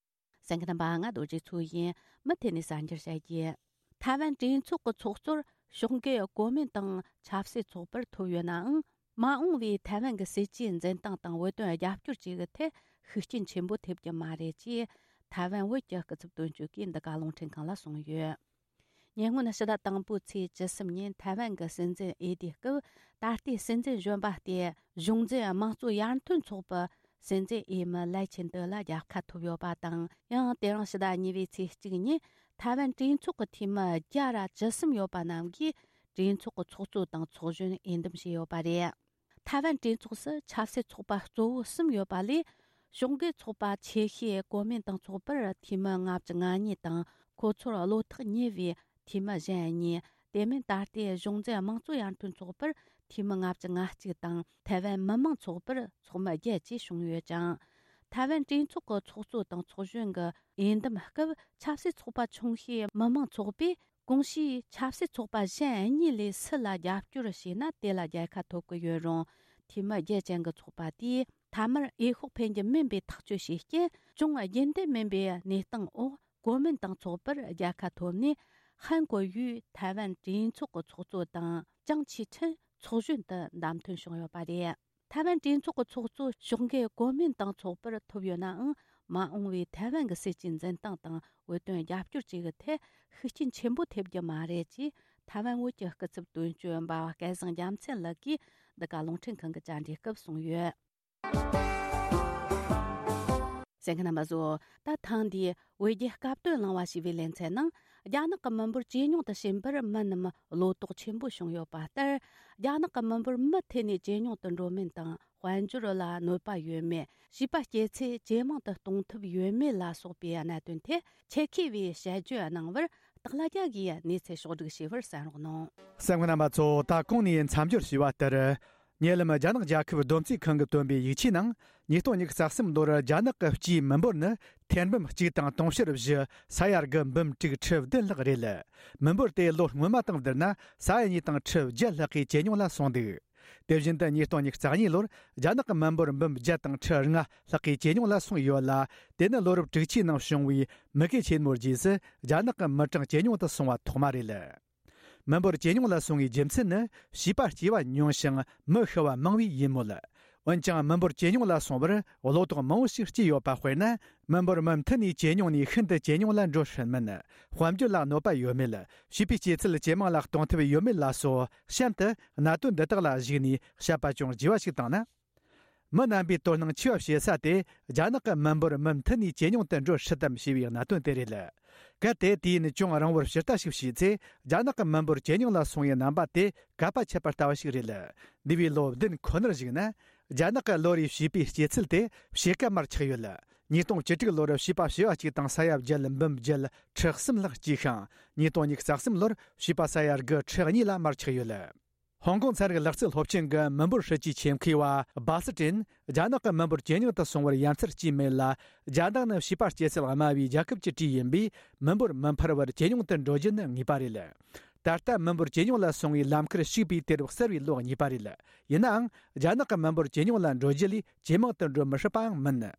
གསན་མཁན་རྣམ་པ། ང་རྡོ་རྗེ་མཚོ་ཡིན། མུ་མཐུད་ནས་གསར་འགྱུར་བཤད་རྒྱུ། ཐའེ་ཝན་གྲོས་ཚོགས་ཀྱི་ཚོགས་གཙོར་ཕྱོགས་འགལ་གོ་མིན་ཏང་ཆབ་སྲིད་ཚོགས་པར་ཐོབ་ཡོད་ནའང་། མ་འོངས་པའི་ཐའེ་ཝན་གྱི་སྲིད་ཇུས་འཛིན་སྟངས་དང་བོད་དོན་རྒྱབ་སྐྱོར་བཅས་ཀྱི་ཐད་ཤུགས་རྐྱེན་ཆེན་པོ་ཐེབས་རྒྱུ་མ་རེད་ཅེས། ཐའེ་ཝན་བོད་ཀྱི་སྐུ་ཚབ་དོན་གཅོད་ཀྱིས་འདི་ག་རླུང་འཕྲིན་ཁང་ལ་གསུངས་ཡོད། ཉེ་སྔོན་ཕྱི་ཟླ་དང་པོའི་ཚེས་བཅུ་གསུམ་ཉིན་ཐའེ་ཝན་གྱི་སྲིད་འཛིན་འོས་བསྡུའི་སྐབས། ད་ལྟའི་སྲིད་འཛིན་གཞོན་པ་སྟེ། གཞུང་འཛིན་དམངས་གཙོ་ཡར་ཐོན་ཚོགས་པའི་སྲིད་འཛིན་འོས་མི་ལའེ་ཆིན་ཏེ་ལ་རྒྱལ་ཁ་ཐོབ་ཡོད་པ་དང་། ཡང་དེ་རིང་ཕྱི་ཟླ་གཉིས་པའི་ཚེས་གཅིག་ཉིན་ཐའེ་ཝན་གྲོས་ཚོགས་ཀྱི་འཐུས་མི་བརྒྱ་ར་བཅུ་གསུམ་ཡོད་པ་རྣམས་ཀྱིས་གྲོས་ཚོགས་ཀྱི་ཚོགས་གཙོ་དང་ཚོགས་གཞོན་འོས་འདེམས་བྱས་ཡོད་པ་རེད། ཐའེ་ཝན་གྲོས་ཚོགས་སུ་ཆབ་སྲིད་ཚོགས་པ་གཙོ་བོ་གསུམ་ཡོད་པ་ལས། ཕྱོགས་འགལ་ཚོགས་པ་ཆེ་ཤོས་གོ་མིན་ཏང་ཚོགས་པར་འཐུས་མི་ལྔ་བཅུ་ང་གཉིས་དང་། ཁོ་ཚོར་བློ་ཐག་ཉེ་བའི་འཐུས་མི་གཞན་གཉིས། དེ་མིན་ད་ལྟའི་གཞུང་འཛིན་དམངས་གཙོ་ཡར་ཐོན་ཚོགས་པར་འཐུས་མི་ལྔ་བཅུ་ང་གཅིག་དང་། ཐའེ་ཝན་མི་དམངས་ཚོགས་པར་ཚོགས་མི་བརྒྱད་བཅས་བྱུང་ཡོད་ཅིང་། ཐའེ་ཝན་གྲོས་ཚོགས་ཀྱི་ཚོགས་གཙོ་དང་ཚོགས་གཞོན་གྱི་འོས་འདེམས་སྐབས། ཆབ་སྲིད་ཚོགས་པ་ཆུང་ཤོས་མི་དམངས་ཚོགས་པས། གོང་ཞུས་ཆབ་སྲིད་ཚོགས་པ་གཞན་གཉིས་ལས་སུ་ལ་རྒྱབ་སྐྱོར་བྱས་ན་དེ་ལ་རྒྱལ་ཁ་ཐོབ་ཀྱི་ཡོད་རུང་། འཐུས་མི་བརྒྱད་ཅན་གྱི་ཚོགས་པ་དེས་མཐའ་མར་འོས་ཤོག་འཕེན་རྒྱུ་མིན་པའི་ཐག་གཅོད་བྱས་རྐྱེན། ཅུང་རྒྱུན་ལྡན་མིན་པའི་གནས་སྟངས་འོག་གོ་མིན་ཏང་ཚོགས་པར་རྒྱལ་ཁ་ཐོབ་ནས། ཧན་གོ་ཡུས་ཐའེ་ཝན་གྲོས་ཚོགས་ཀྱི་ཚོགས་གཙོ་དང་། ཅང་ཆི་ཁྲིན་ཚོགས་གཞོན་དུ་བདམས་ཐོན་བྱུང་ཡོད་པ་རེད། ཐའེ་ཝན་གྲོས་ཚོགས་ཀྱི་ཚོགས་གཙོ་ཕྱོགས་འགལ་གོ་མིན་ཏང་ཚོགས་པར་ཐོབ་ཡོད་ནའང་། མ་འོངས་པའི་ཐའེ་ཝན་གྱི་སྲིད་ཇུས་འཛིན་སྟངས་དང་བོད་དོན་རྒྱབ་སྐྱོར་བཅས་ཀྱི་ཐད་ཤུགས་རྐྱེན་ཆེན་པོ་ཐེབས་རྒྱུ་མ་རེད་ཅེས། ཐའེ་ཝན་བོད་ཀྱི་སྐུ་ཚབ་དོན་གཅོད་འབའ་བ་སྐལ་བཟང་རྒྱལ་མཚན་ལགས་ཀྱིས་འདི་ག་རླུང་འཕྲིན་ཁང་གི་བཅར་འདྲིའི་སྐབས་གསུངས་ཡོད། གསན་མཁན་རྣམ་པ་ཚོ། ད་ཐེངས་འདིའི་བོད་རྒྱའི་སྐབས་དོན་གླེང་བ་ཞེས་པའི་ལེ་ཚན་ནང་། རྒྱ་ནག་གི་མི་འབོར་ཇེ་ཉུང་དུ་ཕྱིན་པར་མི་རྣམས་བློ་དོགས་ཆེན་པོ་བྱུང་ཡོད་པ་ལྟར། རྒྱ་ནག་གི་མི་འབོར་མུ་མཐུད་ནས་ཇེ་ཉུང་དུ་འགྲོ་མིན་དང་། དཔལ་འབྱོར་ལ་གནོད་པ་ཡོད་མེད། བྱིས་པ་སྐྱེ་ཚད་ཇེ་མང་དུ་གཏོང་ཐུབ་ཡོད་མེད་ལ་སོགས་པའི་གནད་དོན་ཐད་ཆེད་མཁས་པས་དཔྱད་བརྗོད་གནང་བར། སྟག་ལྷ་རྒྱལ་གྱིས་གནས་ཚུལ་ཕྱོགས་བསྒྲིགས་བྱས་པར་གསན་རོགས་གནང་། གསན་མཁན་རྣམ་པ་ཚོ། ད་གོང་ནས་མཚམས་སྦྱོར་ཞུས་པ་ལྟར། ཉེ་ལམ་རྒྱ་ནག་རྒྱལ་ཁབ་བསྡོམས་རྩིས་ཁང་གིས་བཏོན་པའི་ཡིག་ཆའི་ནང་། ཉིས་སྟོང་ཉི་ཤུ་རྩ་གསུམ་ལོར་རྒྱ་ནག་གི་སྤྱིའི་མི་འབོར་ནི་ཐེར་འབུམ་གཅིག་དང་དུང་ཕྱུར་བཞི། ས་ཡ་དགུ་འབུམ་དྲུག་ཁྲི་བདུན་ལྷག་རེད། མི་འབོར་དེ་ལོ་སྔོན་མ་དང་བསྡུར་ན་ས་ཡ་གཉིས་དང་ཁྲི་བརྒྱད་ལྷག་གིས་ཇེ་ཉུང་ལ་སོང་འདུག་དེ་བཞིན་དུ་ཉིས་སྟོང་ཉི་ཤུ་རྩ་གཉིས་ལོར་རྒྱ་ནག་གི་མི་འབོར་འབུམ་བརྒྱད་དང་ཁྲི་ལྔ་ལྷག་གིས་ཇེ་ཉུང་ལ་སོང་ཡོད་ལ། དེ་ནི་ལོ་རབས་དྲུག་ཅུའི་ནང་བྱུང་བའི་མུ་གེ་ཆེན་མོའི་རྗེས་སུ་རྒྱ་ནག་གི་མི་གྲངས་ཇེ་ཉུང་དུ་སོང་བ་ཐོག་མ་རེད། མི་འབོར་ཇེ་ཉུང་ལ་སོང་བའི་རྒྱུ་མཚན་ནི་བྱིས་པ་སྐྱེ་བ་ཉུང་ཞིང་མི་ཤི་བ་མང་བས་ཡིན་མོད། འོན་ཀྱང་མི་འབོར་ཇེ་ཉུང་ལ་སོང་བར་བློ་དོགས་མང་བོ་ཞིག་སྐྱེས་ཡོད་པ། དཔེར་ན། མི་འབོར་མུ་མཐུད་ནས་ཇེ་ཉུང་ནས་ཤིན་ཏུ་ཇེ་ཉུང་ལ་འགྲོ་སྲིད་མིན། དཔལ་འབྱོར་ལ་གནོད་པ་ཡོད་མེད། བྱིས་པའི་སྐྱེ་ཚུལ་ཇེ་མང་ལ་གཏོང་ཐབས་ཡོད་མེད་ལ་སོགས། གཤམ་དུ་གནད་དོན་འདི་དག་ལ་གཞིགས་ནས་བཤད་པ་ཅུང་ལྗིད་པ་ཞིག་བཏང་ན། མི་རྣམ་པའི་དོ་སྣང་ཆེ་བ་བྱེད་ས་དེ་རྒྱ་ནག་གི་མི་འབོར་མུ་མཐུད་ནས་ཇེ་ཉུང་དུ་འགྲོ་སྲིད་དམ་ཞེས་པའི་གནད་དོན་དེ་རེད། གལ་ཏེ་དུས་ཡུན་ཅུང་རིང་བོར་ཕྱིར་ལྟ་ཞིག་བྱས་ཚེ། རྒྱ་ནག་གི་མི་འབོར་ཇེ་ཉུང་ལ་སོང་བའི་རྣམ་པ་དེ་གབ་པ་ཆགས་པ་ལྟ་བུ་ཞིག་རེད། འདས་པའི་ལོ་བདུན་ཁོ་ནར་གཞིགས་ན། རྒྱ་ནག་གི་ལོ་རེའི་བྱིས་པའི་སྐྱེ་ཚུལ་དེ་ཕྱེད་ཀ་མར་ཆག་ཡོད། ཉིས་སྟོང་བཅུ་དྲུག་ལོར་བྱིས་པ་བྱེ་བ་གཅིག་དང་ས་ཡ་བརྒྱད་འབུམ་བརྒྱད་ཁྲི་གསུམ་ལྷག་སྐྱེས་ཤིང་། ཉིས་སྟོང་ཉི་ཤུ་རྩ་གསུམ་ལོར་བྱིས་པ་ས་ཡ་དགུ་ཁྲི་གཉིས་ལ་མར་ཆག་ཡོད། ཧོང་ཀོང་ཚན་རིག་ལག་རྩལ་སློབ་ཆེན་གྱི་མི་འབོར་སྲིད་ཇུས་ཆེད་མཁས་པ་སྦ་སི་ཀྲིན། རྒྱ་ནག་གི་མི་འབོར་ཇེ་ཉུང་དུ་སོང་བར་ཡ་མཚན་གཅིག་མེད་ལ། རྒྱ་ནག་ནི་བྱིས་པ་སྐྱེ་ཚད་དམའ་བའི་རྒྱལ་ཁབ་ཀྱི་གྲས་ཡིན་པས། མི་འབོར་མི་འཕར་བར་ཇེ་ཉུང་དུ་འགྲོ་རྒྱུ་ནི་ངེས་པ་རེད། ད་ལྟ་མི་འབོར་ཇེ་ཉུང་ལ་སོང་བའི་ལམ་ཁར་ཞུགས་པའི་དུས་རབས་གསར་བའི་ལོ་གཉིས་པ་རེད། ཡིན་ནའང་། རྒྱ་ནག་གི་མི་འབོར་ཇེ་ཉུང་ལ་འགྲོ་རྒྱུ་ལས་ཇེ་མང་དུ་འགྲོ་མི་སྲིད་པའང་མིན།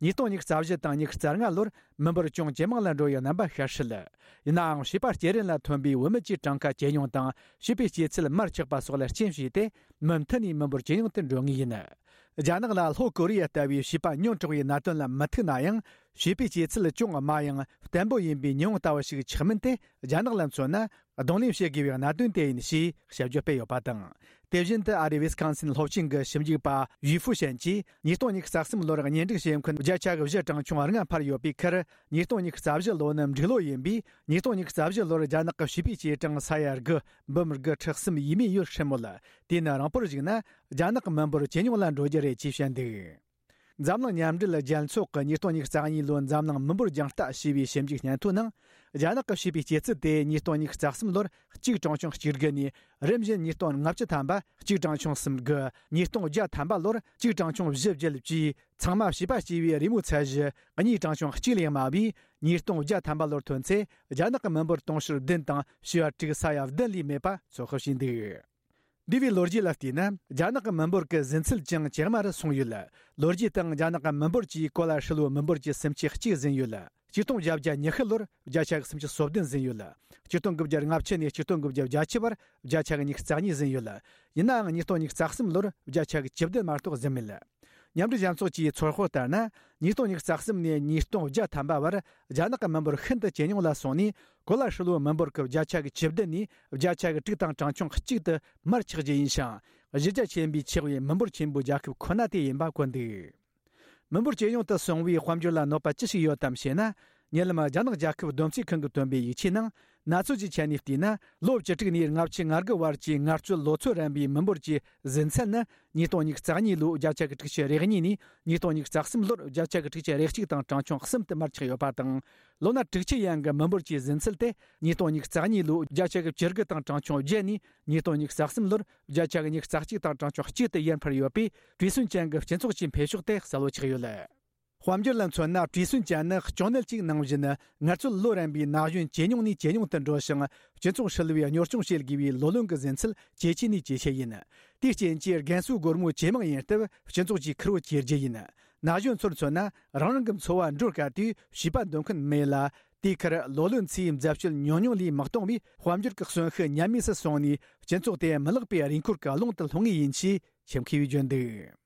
ཉིས་སྟོང་ཉི་ཤུ་རྩ་བཞི་དང་ཉི་ཤུ་རྩ་ལྔ་ལོར་མི་འབོར་ཅུང་ཇེ་མང་ལ་འགྲོ་བའི་རྣམ་པ་ཤར་སྲིད། ཡིན་ནའང་། བྱིས་པ་སྐྱེ་རིན་ལ་ཐོན་པའི་བུད་མེད་ཀྱི་གྲངས་ཀ་ཇེ་ཉུང་དང་། བྱིས་པའི་སྐྱེ་ཚད་མར་ཆག་པ་སོགས་ལ་རྐྱེན་བྱས་ཏེ། མུ་མཐུད་ནས་མི་འབོར་ཇེ་ཉུང་དུ་འགྲོ་ངེས་ཡིན། རྒྱ་ནག་ལ་ལྷོ་ཀོ་རི་ཡ་ལྟ་བུའི་བྱིས་པ་ཉུང་དྲགས་པའི་གནད་དོན་ལ་མི་ཐུག་ན་ཡང་། བྱིས་པའི་སྐྱེ་ཚད་ཅུང་དམའ་ཡང་བརྟན་པོ་ཡིན་པའི་ཉི་འོང་ལྟ་བུ་ཞིག་ཆགས་མིན་དེ། རྒྱ་ནག་ལ་མཚོན་ན། གདོང་ལེན་བྱེད་དགོས་པའི་གནད་དོན་དེ་ཡིན་ཞེས་དཔྱད་བརྗོད་སྤེལ་ཡོད་པ་དང་། དེ་བཞིན་དུ་ཨ་རིའི་ཝི་སི་ཀོན་སིན་སློབ་ཆེན་གྱི་ཞིབ་འཇུག་པ་ཡུས་ཧྥུ་ཞན་གྱིས། ཉིས་སྟོང་ཉི་ཤུ་རྩ་གསུམ་ལོར་གཉེན་སྒྲིག་བྱེད་མཁན་བརྒྱ་ཆ་བཞི་གྲངས་ཆུང་ལྔ་འཕར་ཡོད་པའི་ཁར། ཉིས་སྟོང་ཉི་ཤུ་རྩ་བཞི་ལོ་ནི་འབྲུག་ལོ་ཡིན་པས། ཉིས་སྟོང་ཉི་ཤུ་རྩ་བཞི་ལོར་རྒྱ་ནག་གི་བྱིས་པའི་སྐྱེ་གྲངས་ས་ཡ་དགུ་འབུམ་དགུ་ཁྲི་གསུམ་ཡས་མས་ཡོད་སྲིད་མོད། དེས་ན་རིང་པོར་གཞིགས་ན། རྒྱ་ནག་གི་མི་འབོར་ཇེ་ཉུང་ལ་འགྲོ་རྒྱུ་རེད་ཅེས་བཤད་འདུག་འཛམ་གླིང་མཉམ་འབྲེལ་རྒྱལ་ཚོགས་ཀྱི་ཉིས་སྟོང་ཉི་ཤུ་རྩ་གཉིས་ལོའི་འཛམ་གླིང་མི་འབོར་རྒྱང་ལྟ་ཞེས་པའི་ཞིབ་འཇུག་སྙན་ཐོའི་ནང་། རྒྱ་ནག་གིས་བྱས་པའི་སྐྱེས་ཚུལ་དེ་ཉིས་སྟོང་ཉི་ཤུ་རྩ་གསུམ་ལོར་གཅིག་གྲངས་ཆུང་གཅིག་དགུ་ནས་རིམ་བཞིན་ཉིས་སྟོང་ལྔ་བཅུ་ཐམ་པ་གཅིག་གྲངས་ཆུང་གསུམ་དགུ། ཉིས་སྟོང་བརྒྱ་ཐམ་པ་ལོར་གཅིག་གྲངས་ཆུང་བཞི་བརྒྱད་བཅས། ཚང་མ་བྱིས་པ་སྐྱེས་པའི་རེས་མོས་ཚད་གཞི་གཉིས་གྲངས་ཆུང་གཅིག་ལས་དམའ་བས། ཉིས་སྟོང་བརྒྱ་ཐམ་པ་ལོར་ཐོན་ཚེ། རྒྱ་ནག་གི་མི་འབོར་དུང་ཕྱུར་བདུན་དང་བྱེ་བ་དྲུག་ས་ཡ་བདུན་ལས་མེད་པ་ཚོད་དཔག་བྱས་འདུག། འདས་པའི་ལོ་རྒྱུས་ལ་བལྟས་ན། རྒྱ་ནག་གི་མི་འབོར་གྱི་ཟིན་ཚད་ཀྱང་ཇེ་དམའ་རུ་སོང་ཡོད། ལོ་རྒྱུས་སྟེང་རྒྱ་ནག་གི་མི་འབོར་གྱིས་གོ་ལ་ཧྲིལ་བོའི་མི་འབོར་གྱི་སུམ་ཆའི་གཅིག་ཟིན་ཡོད། ཆིག་སྟོང་བརྒྱད་བརྒྱ་ཉི་ཤུ་ལོར་བརྒྱ་ཆ་གི་སུམ་ཅུ་སོ་བདུན་ཟིན་ཡོད། ཆིག་སྟོང་དགུ་བརྒྱ་ལྔ་བཅུ་ནས་ཆིག་སྟོང་དགུ་བརྒྱ་བརྒྱད་ཅུ་བར་བརྒྱ་ཆ་གི་ཉི་ཤུ་རྩ་གཉིས་ཟིན་ཡོད། ཡིན་ནའང་ཉིས་སྟོང་ཉི་ཤུ་རྩ་གསུམ་ལོར་བརྒྱ་ཆ་གི་བཅུ་བདུན་མ་གཏོགས་ཟིན་མེད། མཉམ་འབྲེལ་རྒྱལ་ཚོགས་ཀྱི་ཚོད་དཔག་ལྟར་ན། ཉིས་སྟོང་ཉི་ཤུ་རྩ་གསུམ་ནས་ཉིས་སྟོང་བརྒྱ་ཐམ་པ་བར་རྒྱ་ནག་གི་མི་འབོར་ཤིན་ཏུ་ཇེ་ཉུང་ལ་སོང་ནས། གོ་ལ་ཧྲིལ་བོའི་མི་འབོར་གྱི་བརྒྱ་ཆ་གི་བཅུ་བདུན་ནས་བརྒྱ་ཆ་གི་དྲུག་དང་གྲངས་ཆུང་གཅིག་ཏུ་མར་ཆག་རྒྱུ་ཡིན་ཞིང་། གཞི་རྒྱ་ཆེན་པོས་ཆགས་པའི་མི་འབོར་ཆེན་པོའི་རྒྱལ་ཁབ་ཁོ་ན་དེ་ཡིན་པ་བཀོད་འདུག། མི་འབོར་ཇེ་ཉུང་དུ་སོང་བའི་དཔལ་འབྱོར་ལ་གནོད་པ་ཅི་ཞིག་ཡོད་དམ་ཞེ་ན། ཉེ་ལམ་རྒྱ་ནག་རྒྱལ་ཁབ་བསྡོམས་རྩིས་ཁང་གིས་བཏོན་པའི་ཡིག་ཆའི་ནང་། གནས་ཚུལ་གྱི་ཆ་ནས་བལྟས་ན། ལོ་བཅུ་དྲུག་ནས་ལྔ་བཅུ་ང་དགུ་བར་གྱི་ངལ་རྩོལ་ལོ་ཚོད་རན་པའི་མི་འབོར་གྱི་ཟིན་ཚད་ནི། ཉིས་སྟོང་ཉི་ཤུ་རྩ་གཉིས་ལོའི་བརྒྱ་ཆ་གི་དྲུག་ཅུ་རེ་གཉིས་ནས། ཉིས་སྟོང་ཉི་ཤུ་རྩ་གསུམ་ལོར་བརྒྱ་ཆ་གི་དྲུག་ཅུ་རེ་གཅིག་དང་གྲངས་ཆུང་གསུམ་དུ་མར་ཆག་ཡོད་པ་དང་། ལོ་ན་དྲུག་ཅུ་ཡན་གྱི་མི་འབོར་གྱི་ཟིན་ཚད་དེ། ཉིས་སྟོང་ཉི་ཤུ་རྩ་གཉིས་ལོའི་བརྒྱ་ཆ་གི་བཅུ་དགུ་དང་གྲངས་ཆུང་བརྒྱད་ནས། ཉིས་སྟོང་ཉི་ཤུ་རྩ་གསུམ་ལོར་བརྒྱ་ཆ་གི་ཉི་ཤུ་རྩ་གཅིག་དང་གྲངས་ཆུང་གཅིག་ཏུ་ཡར་འཕར་ཡོད་པས། བྲེལ་ཟིང་ཅན་གྱི་སྤྱི་ཚོགས་ཀྱི་འཕེལ་ཕྱོགས་དེ་གསལ་བོ་ཆགས་ཡོད། དཔལ་འབྱོར་ལ་མཚོན་ན། བྲེལ་ཟིང་ཅན་ནི་གཅོང་ནད་ཅིག་ནང་བཞིན། ངལ་རྩོལ་ལོ་རན་པའི་ན་གཞོན་ཇེ་ཉུང་ནས་ཇེ་ཉུང་དུ་འགྲོ་ཞིང་། སྤྱི་ཚོགས་ཧྲིལ་བོའི་གཉོར་སྐྱོང་བྱེད་དགོས་པའི་ལོ་ལོན་གྱི་ཟིན་ཚད་ཇེ་ཆེ་ནས་ཇེ་ཆེ་ཡིན། དེའི་རྐྱེན་གྱིས་རྒན་གསོའི་སྒོར་མོ་ཇེ་མང་ཡིན་སྟབས། སྤྱི་ཚོགས་ཀྱི་ཁེར་བོ་ཇེ་རྒྱུ་ཡིན། ན་གཞོན་ཚོར་མཚོན་ན། རང་རང་གི་འཚོ་བ་འགྲོ་དཀའ་དུས་བྱིས་པ་འདོན་མཁན་མེད་ལ། དེའི་ཁར་ལོ་ལོན་ཚོའི་འཛད་སྤྱོད་ཉུང་ཉུང་ལས་མི་གཏོང་བས། དཔལ་འབྱོར་གྱི་གསོན་ཤུགས་ཉམས་དམས་སུ་སོང་ནས། སྤྱི་ཚོགས་དེ་མི་ལེགས་པའི་རེས་འཁོར་གྱི་ཀློང་དུ་ལྷུང་ངེས་ཡིན་ཞེས་ཁྱིམ་མཁས་པས་བརྗོད་འདུག།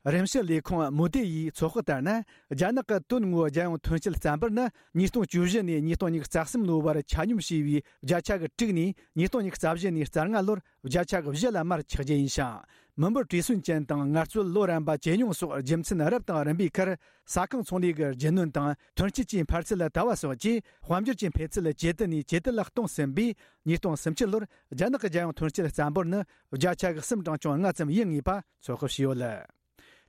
རིམ་བཤེར་ལས་ཁུངས་མུ་དེ་ཡིས་ཚོད་དཔག་ལྟར་ན། རྒྱ་ནག་གི་དོན་དངོས་རྒྱལ་ཡོངས་ཐོན་སྐྱེད་བརྟན་པོར་ནི། ཉིས་སྟོང་བཅུ་བཞི་ནས་ཉིས་སྟོང་ཉི་ཤུ་རྩ་གསུམ་ལོའི་བར་ཆ་སྙོམས་བྱས་པའི་བརྒྱ་ཆ་གི་དྲུག་ནས། ཉིས་སྟོང་ཉི་ཤུ་རྩ་བཞི་ནས་རྩ་ལྔ་ལོར་བརྒྱ་ཆ་གི་བཞི་ལ་མར་ཆག་རྒྱུ་ཡིན་ཞིང་། མི་འབོར་བྲེལ་ཟིང་ཅན་དང་ངལ་རྩོལ་ལོ་རན་པ་ཇེ་ཉུང་སོགས་རྒྱུ་མཚན་རབ་དང་རིམ་པའི་ཁར། ས་ཁང་ཚོང་ལས་ཀྱི་རྒྱུ་ནོར་དང་ཐོན་སྐྱེད་ཀྱི་འཕར་ཚད་ལ་ལྟ་བ་སོགས་ཀྱིས་དཔལ་འབྱོར་གྱི་འཕེལ་ཚད་ཇེ་བརྟན་ནས་ཇེ་བརྟན་ལ་གཏོང་ཟིན་པས། ཉིས་སྟོང་སུམ་ཅུ་ལོར་རྒྱ་ནག་གི་རྒྱལ་ཡོངས་ཐོན་སྐྱེད་བརྟན་པོར་ནི་བརྒྱ་ཆ་གི་གསུམ་གྲངས་ཆུང་ལྔ་ཙམ་ཡིན་ངེས་པ་ཚོད་དཔག་བྱས་ཡོད།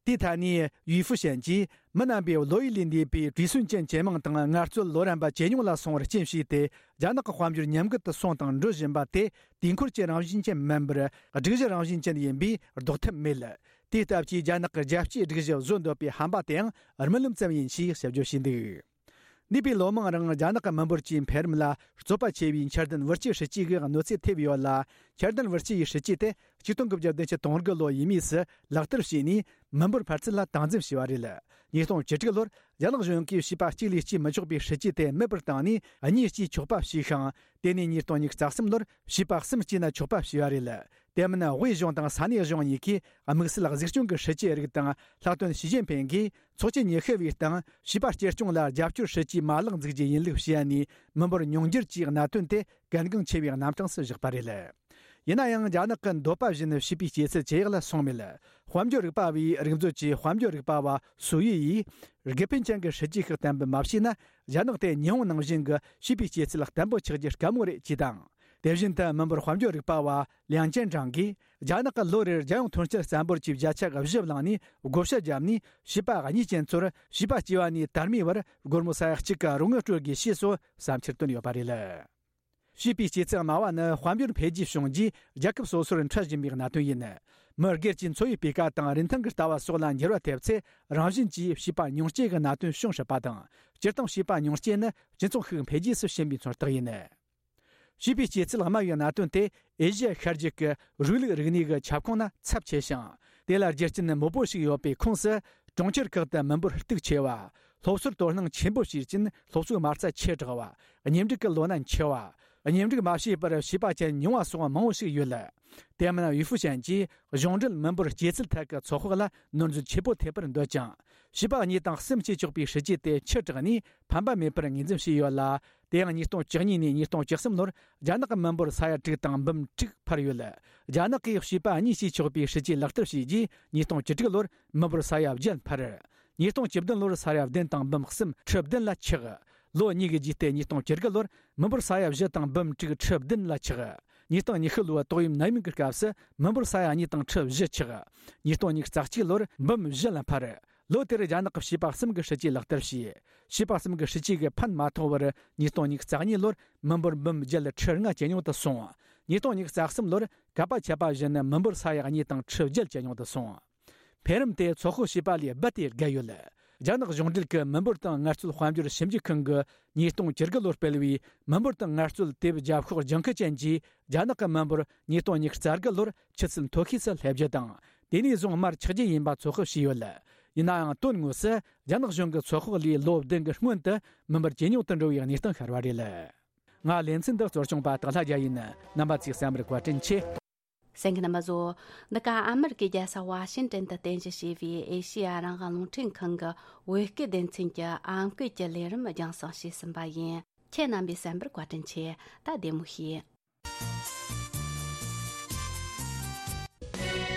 དེའི་ཐད་ནས་ཡུས་ཧྥུ་ཞན་གྱིས། མི་རྣམ་པས་བློ་ཡུལ་ལས་འདས་པའི་བྲེལ་ཟིང་ཅན་ཇེ་མང་དང་ངལ་རྩོལ་ལོ་རན་པ་ཇེ་ཉུང་ལ་སོང་བར་རྐྱེན་བྱས་ཏེ། རྒྱ་ནག་གི་དཔལ་འབྱོར་ཉམས་རྒུད་དུ་སོང་དང་འགྲོ་བཞིན་པ་དེ། དུས་འཁོར་གྱི་རང་བཞིན་ཅན་མིན་པར། སྒྲིག་གཞི་རང་བཞིན་ཅན་ཡིན་པས་ལྡོག་ཐབས་མེད། དེའི་སྟབས་ཀྱིས་རྒྱ་ནག་གི་རྒྱལ་སྤྱིའི་སྒྲིག་གཞི་བཟོ་འདོད་པའི་ཧམ་པ་དེའང་རྨི་ལམ་ཙམ་ཡིན་ཞེས་ཞིབ་བརྗོད་བྱས་འདུག། འདས་པའི་ལོ་མང་རིང་རྒྱ་ནག་གི་མི་འབོར་གྱི་འཕེལ་རིམ་ལ་རྩོད་པ་ཆེ་བའི་འཆར་ལྡན་བུ་སྐྱེས་སྲིད་ཇུས་ཀྱི་གནོད་འཚེ་ཐེབས་ཡོད་ལ། འཆར་ལྡན་བུ་སྐྱེས་ཡི་སྲིད་ཇུས་དེ་ཆིག་སྟོང་དགུ་བརྒྱ་བདུན་ཅུ་དོན་དགུ་ལོ་ཡས་མས་སུ་ལག་བསྟར་བྱས་ནས། མི་འབོར་འཕར་ཚད་ལ་སྟངས་འཛིན་བྱས་པ་རེད། ཉིས་སྟོང་བཅུ་དྲུག་ལོར་རྒྱ་ནག་གཞུང་གིས་བྱིས་པ་གཅིག་ལས་སྐྱེས་མི་ཆོག་པའི་སྲིད་ཇུས་དེ་མེད་པར་བཏང་ནས། གཉིས་སྐྱེས་ཆོག་པ་བྱས་ཤིང་། དེ་ནས་ཉིས་སྟོང་ཉི་ཤུ་རྩ་གསུམ་ལོར་བྱིས་པ་གསུམ་སྐྱེས་ན་ཆོག་པ་བྱས་པ་རེད། དེ་མིན་དབུས་གཞུང་དང་ས་གནས་གཞུང་གཉིས་ཀས་དམིགས་བསལ་གཟིགས་སྐྱོང་གི་སྲིད་ཇུས་རིགས་དང་། ལྷག་དོན་ཞི་ཅིན་ཕིང་གིས་ཚོགས་ཆེན་ཉི་ཤུ་པའི་སྟེང་བྱིས་པ་གཅེས་སྐྱོང་ལ་རྒྱབ་སྐྱོར་སྲིད་ཇུས་མ་ལག་འཛུགས་རྒྱུ་ཡིན་ལུགས་བཤད་ནས། མི་འབོར་ཉུང་འགྱུར་གྱི་གནད་དོན་དེ་གལ་འགངས་ཆེ་བའི་རྣམ་གྲངས་སུ་བཞག་པ་རེད། ཡིན་ན་ཡང་། རྒྱ་ནག་གི་འདོད་པ་བཞིན་བྱིས་པའི་སྐྱེས་ཚད་ཇེ་ཡག་ལ་སོང་མེད། དཔལ་འབྱོར་རིག་པ་བའི་རིག་མཛོད་ཀྱི་དཔལ་འབྱོར་རིག་པ་བ་སུའུ་ཡི་ཡིས། དགེ་ཕན་ཅན་གྱི་སྲིད་ཇུས་ཤིག་བརྟན་པོ་མ་བྱས་ན། རྒྱ་ནག་དེ་ཉི་ཧོང་ནང་བཞིན་གྱི་བྱིས་པའི་སྐྱེས་ཚད་བརྟན་པོ་ཆགས་རྒྱུ་དཀའ་མོ་རེད་ཅེས་དང་། དེ་བཞིན་དུ་མི་འབོར་དཔལ་འབྱོར་རིག་པ་བ་ལིའང་ཅན་ཀྲང་གིས། རྒྱ་ནག་གིས་ལོ་རེར་རྒྱལ་ཡོངས་ཐོན་སྐྱེད་བརྟན་པོར་གྱི་བརྒྱ་ཆ་བཞི་བླངས་ནས། བགོ་བཤའ་བརྒྱབ་ནས། བྱིས་པ་གཉིས་ཅན་ཚོར་བྱིས་པ་སྐྱེས་པ་ནས་དར་མའི་བར་སྒོར་མོ་ས་ཡ་གཅིག་གི་རོགས་དངུལ་སྤྲོད་དགོས་ཞེས་སོགས་བསམ་འཆར་བཏོན་ཡོད་པ་རེད། བྱིས་པའི་སྐྱེས་ཚད་དམའ་བ་ནི་དཔལ་འབྱོར་འཕེལ་རྒྱས་བྱུང་རྗེས་རྒྱལ་ཁབ་སོ་སོར་འཕྲད་བཞིན་པའི་གནད་དོན་ཡིན། མི་སྒེར་གྱི་འཚོ་བའི་སྤུས་ཀ་དང་རིན་ཐང་གི་ལྟ་བ་སོགས་ལ་འགྱུར་བ་ཐེབས་ཚེ། རང་བཞིན་གྱིས་བྱིས་པ་ཉུང་སྐྱེས་ཀྱི་གནད་དོན་བྱུང་སྲིད་པ་དང་། སྤྱིར་བཏང་བྱིས་པ་ཉུང་སྐྱེས་ནི་སྤྱི་ཚོགས་ཤིག་འཕེལ་རྒྱས་སུ་ཕྱིན་པའི་མཚོན་རྟགས་ཡིན། བྱིས་པའི་སྐྱེས་ཚད་དམའ་བའི་གནད་དོན་དེ་ཨེ་ཤི་ཡ་ཤར་རྒྱུད་ཀྱི་རིག་ལུགས་རིག་གནས་ཀྱི་ཁྱབ་ཁོངས་ན་ཚབས་ཆེ་ཞིང་། དེ་ལ་རྒྱུ་རྐྱེན་མང་པོ་ཞིག་ཡོད་པའི་ཁོངས་སུ། གྲོང་ཁྱེར་ཁག་ཏུ་མི་འབོར་སྟུག་ཆེ་བ། སློབ་གསོར་དོ་སྣང་ཆེན་པོ་བྱེད་རྐྱེན་སློབ་གསོའི་མ་རྩ་ཆེ་དྲགས་པ། གཉེན་སྒྲིག་གི་ལོ་ན་འཆི་བ། གཉེན་སྒྲིག་མ་བྱས་པར་བྱིས་པ་ཅན་ཉུང་བ་སོགས་མང་བོ་ཞིག་ཡོད། དེ་མིན་ཡུས་ཧྥུ་ཞན་གྱིས་གཞུང་འབྲེལ་མི་འབོར་སྐྱེས་ཚད་ཐད་ཀྱི་ཚོད་དཔག་ལ་ནོར་འཛོལ་ཆེ་པོ་ཐེབས་པར་འདོད་ཀྱང་། བྱིས་པ་གཉིས་དང་གསུམ་སྐྱེས་ཆོག་པའི་སྲིད་ཇུས་དེ་ཕྱིར་བསྒྲགས་ནས་ཕན་པ་མེད་པར་ངོས་འཛིན་བྱས་ཡོད་ལ། དེ་ཡང་ཉིས་སྟོང་བཅུ་གཉིས་ནས་ཉིས་སྟོང་བཅུ་གསུམ་ལོར་རྒྱ་ནག་གི་མི་འབོར་ས་ཡ་དྲུག་དང་འབུམ་དྲུག་འཕར་ཡོད། རྒྱ་ནག་གིས་བྱིས་པ་གཉིས་སྐྱེས་ཆོག་པའི་སྲིད་ཇུས་ལག་བསྟར་བྱས་རྗེས། ཉིས་སྟོང་བཅུ་དྲུག་ལོར་མི་འབོར་ས་ཡ་བརྒྱད་འཕར། ཉིས་སྟོང་བཅུ་བདུན་ལོར་ས་ཡ་བདུན་དང་འབུམ་གསུམ་ཁྲི་བདུན་ལ་ཆག། ལོ་གཉིས་ཀྱི་རྗེས་ཏེ་ཉིས་སྟོང་བཅུ་དགུ་ལོར་མི་འབོར་ས་ཡ་བཞི་དང་འབུམ་དྲུག་ཁྲི་བདུན་ལ་ཆག། ཉིས་སྟོང་ཉི་ཤུ་ལོའི་ཏོག་དབྱིབས་ནད་ཡམས་ཀྱི་སྐབས་སུ་མི་འབོར་ས་ཡ་གཉིས་དང་ཁྲི་བཞི་ཆག། ཉིས་སྟོང་ཉི་ཤུ་རྩ་གཅིག་ལོར་འབུམ་བཞི་ལ་འཕར། ལོ་དེར་རྒྱ་ནག་གི་བྱིས་པ་གསུམ་གྱི་སྲིད་ཇུས་ལག་བསྟར་བྱས། བྱིས་པ་གསུམ་གྱི་སྲིད་ཇུས་ཀྱི་ཕན་མ་ཐོགས་པར་ཉིས་སྟོང་ཉི་ཤུ་རྩ་གཉིས་ལོར་མི་འབོར་འབུམ་བརྒྱད་ཁྲི་ལྔ་ཇེ་ཉུང་དུ་སོང་། ཉིས་སྟོང་ཉི་ཤུ་རྩ་གསུམ་ལོར་གད་པ་ཆད་པ་བཞིན་མི་འབོར་ས་ཡ་གཉིས་དང་ཁྲི་བརྒྱད་ཇེ་ཉུང་དུ་སོང་། འཕེལ་རིམ་དེ་ཚོད་དཔག་བྱས་པ་ལས་རྦད་དེ་བརྒལ་ཡོད། རྒྱ་ནག་གཞུང་འབྲེལ་གྱི་མི་འབོར་དང་ངལ་རྩོལ་དཔལ་འབྱོར་ཞིབ་འཇུག་ཁང་གིས་ཉིས་སྟོང་བཅུ་དགུ་ལོར་སྤེལ་བའི་མི་འབོར་དང་ངལ་རྩོལ་དེབ་རྒྱབ་ཤོག་ལྗང་ཁུ་ཅན་གྱིས། རྒྱ་ནག་གི་མི་འབོར་ཉིས་སྟོང་ཉི་ཤུ་རྩ་དགུ་ལོར་ཆུ་ཚད་མཐོ་ཤོས་སུ་སླེབས་རྒྱུ་དང་། དེ་ནས་བཟུང་མར་ཆག་རྒྱུ་ཡིན་པ་ཚོད་དཔག་བྱས་ཡོད། ཡིན་ནའང་དོན་དངོས་སུ་རྒྱ་ནག་གཞུང་གི་ཚོད་དཔག་ལས་ལོ་བདུན་གྱི་སྔོན་དུ་མི་འབོར་ཇེ་ཉུང་དུ་འགྲོ་བའི་གནས་སྟངས་ཤར་བ་རེད། ང་ལེ་ཚན་འདི་གཙོ་སྐྱོང་པ་སྟག་ལྷ་རྒྱལ་ཡིན། རྣམ་པ་ཚོས་གསན་པར་བཀའ་དྲིན་ཆེ། གསན་མཁན་རྣམ་པ་ཚོ། འདི་ག་ཨ་མི་རི་ཀའི་རྒྱལ་ས་ཝ་ཤིང་ཏན་དུ་རྟེན་གཞི་བྱས་པའི་ཨེ་ཤེ་ཡ་རང་དབང་རླུང་འཕྲིན་ཁང་གི་བོད་སྐད་སྡེ་ཚན་གྱི་ཨམ་སྐད་ཀྱི་ལས་རིམ་རྒྱང་སྲིང་བྱས་ཟིན་པ་ཡིན། ཁྱེད་རྣམ་པས་གསན་པར་བཀའ་དྲིན་ཆེ། ད་བདེ་མོ་བྱོས།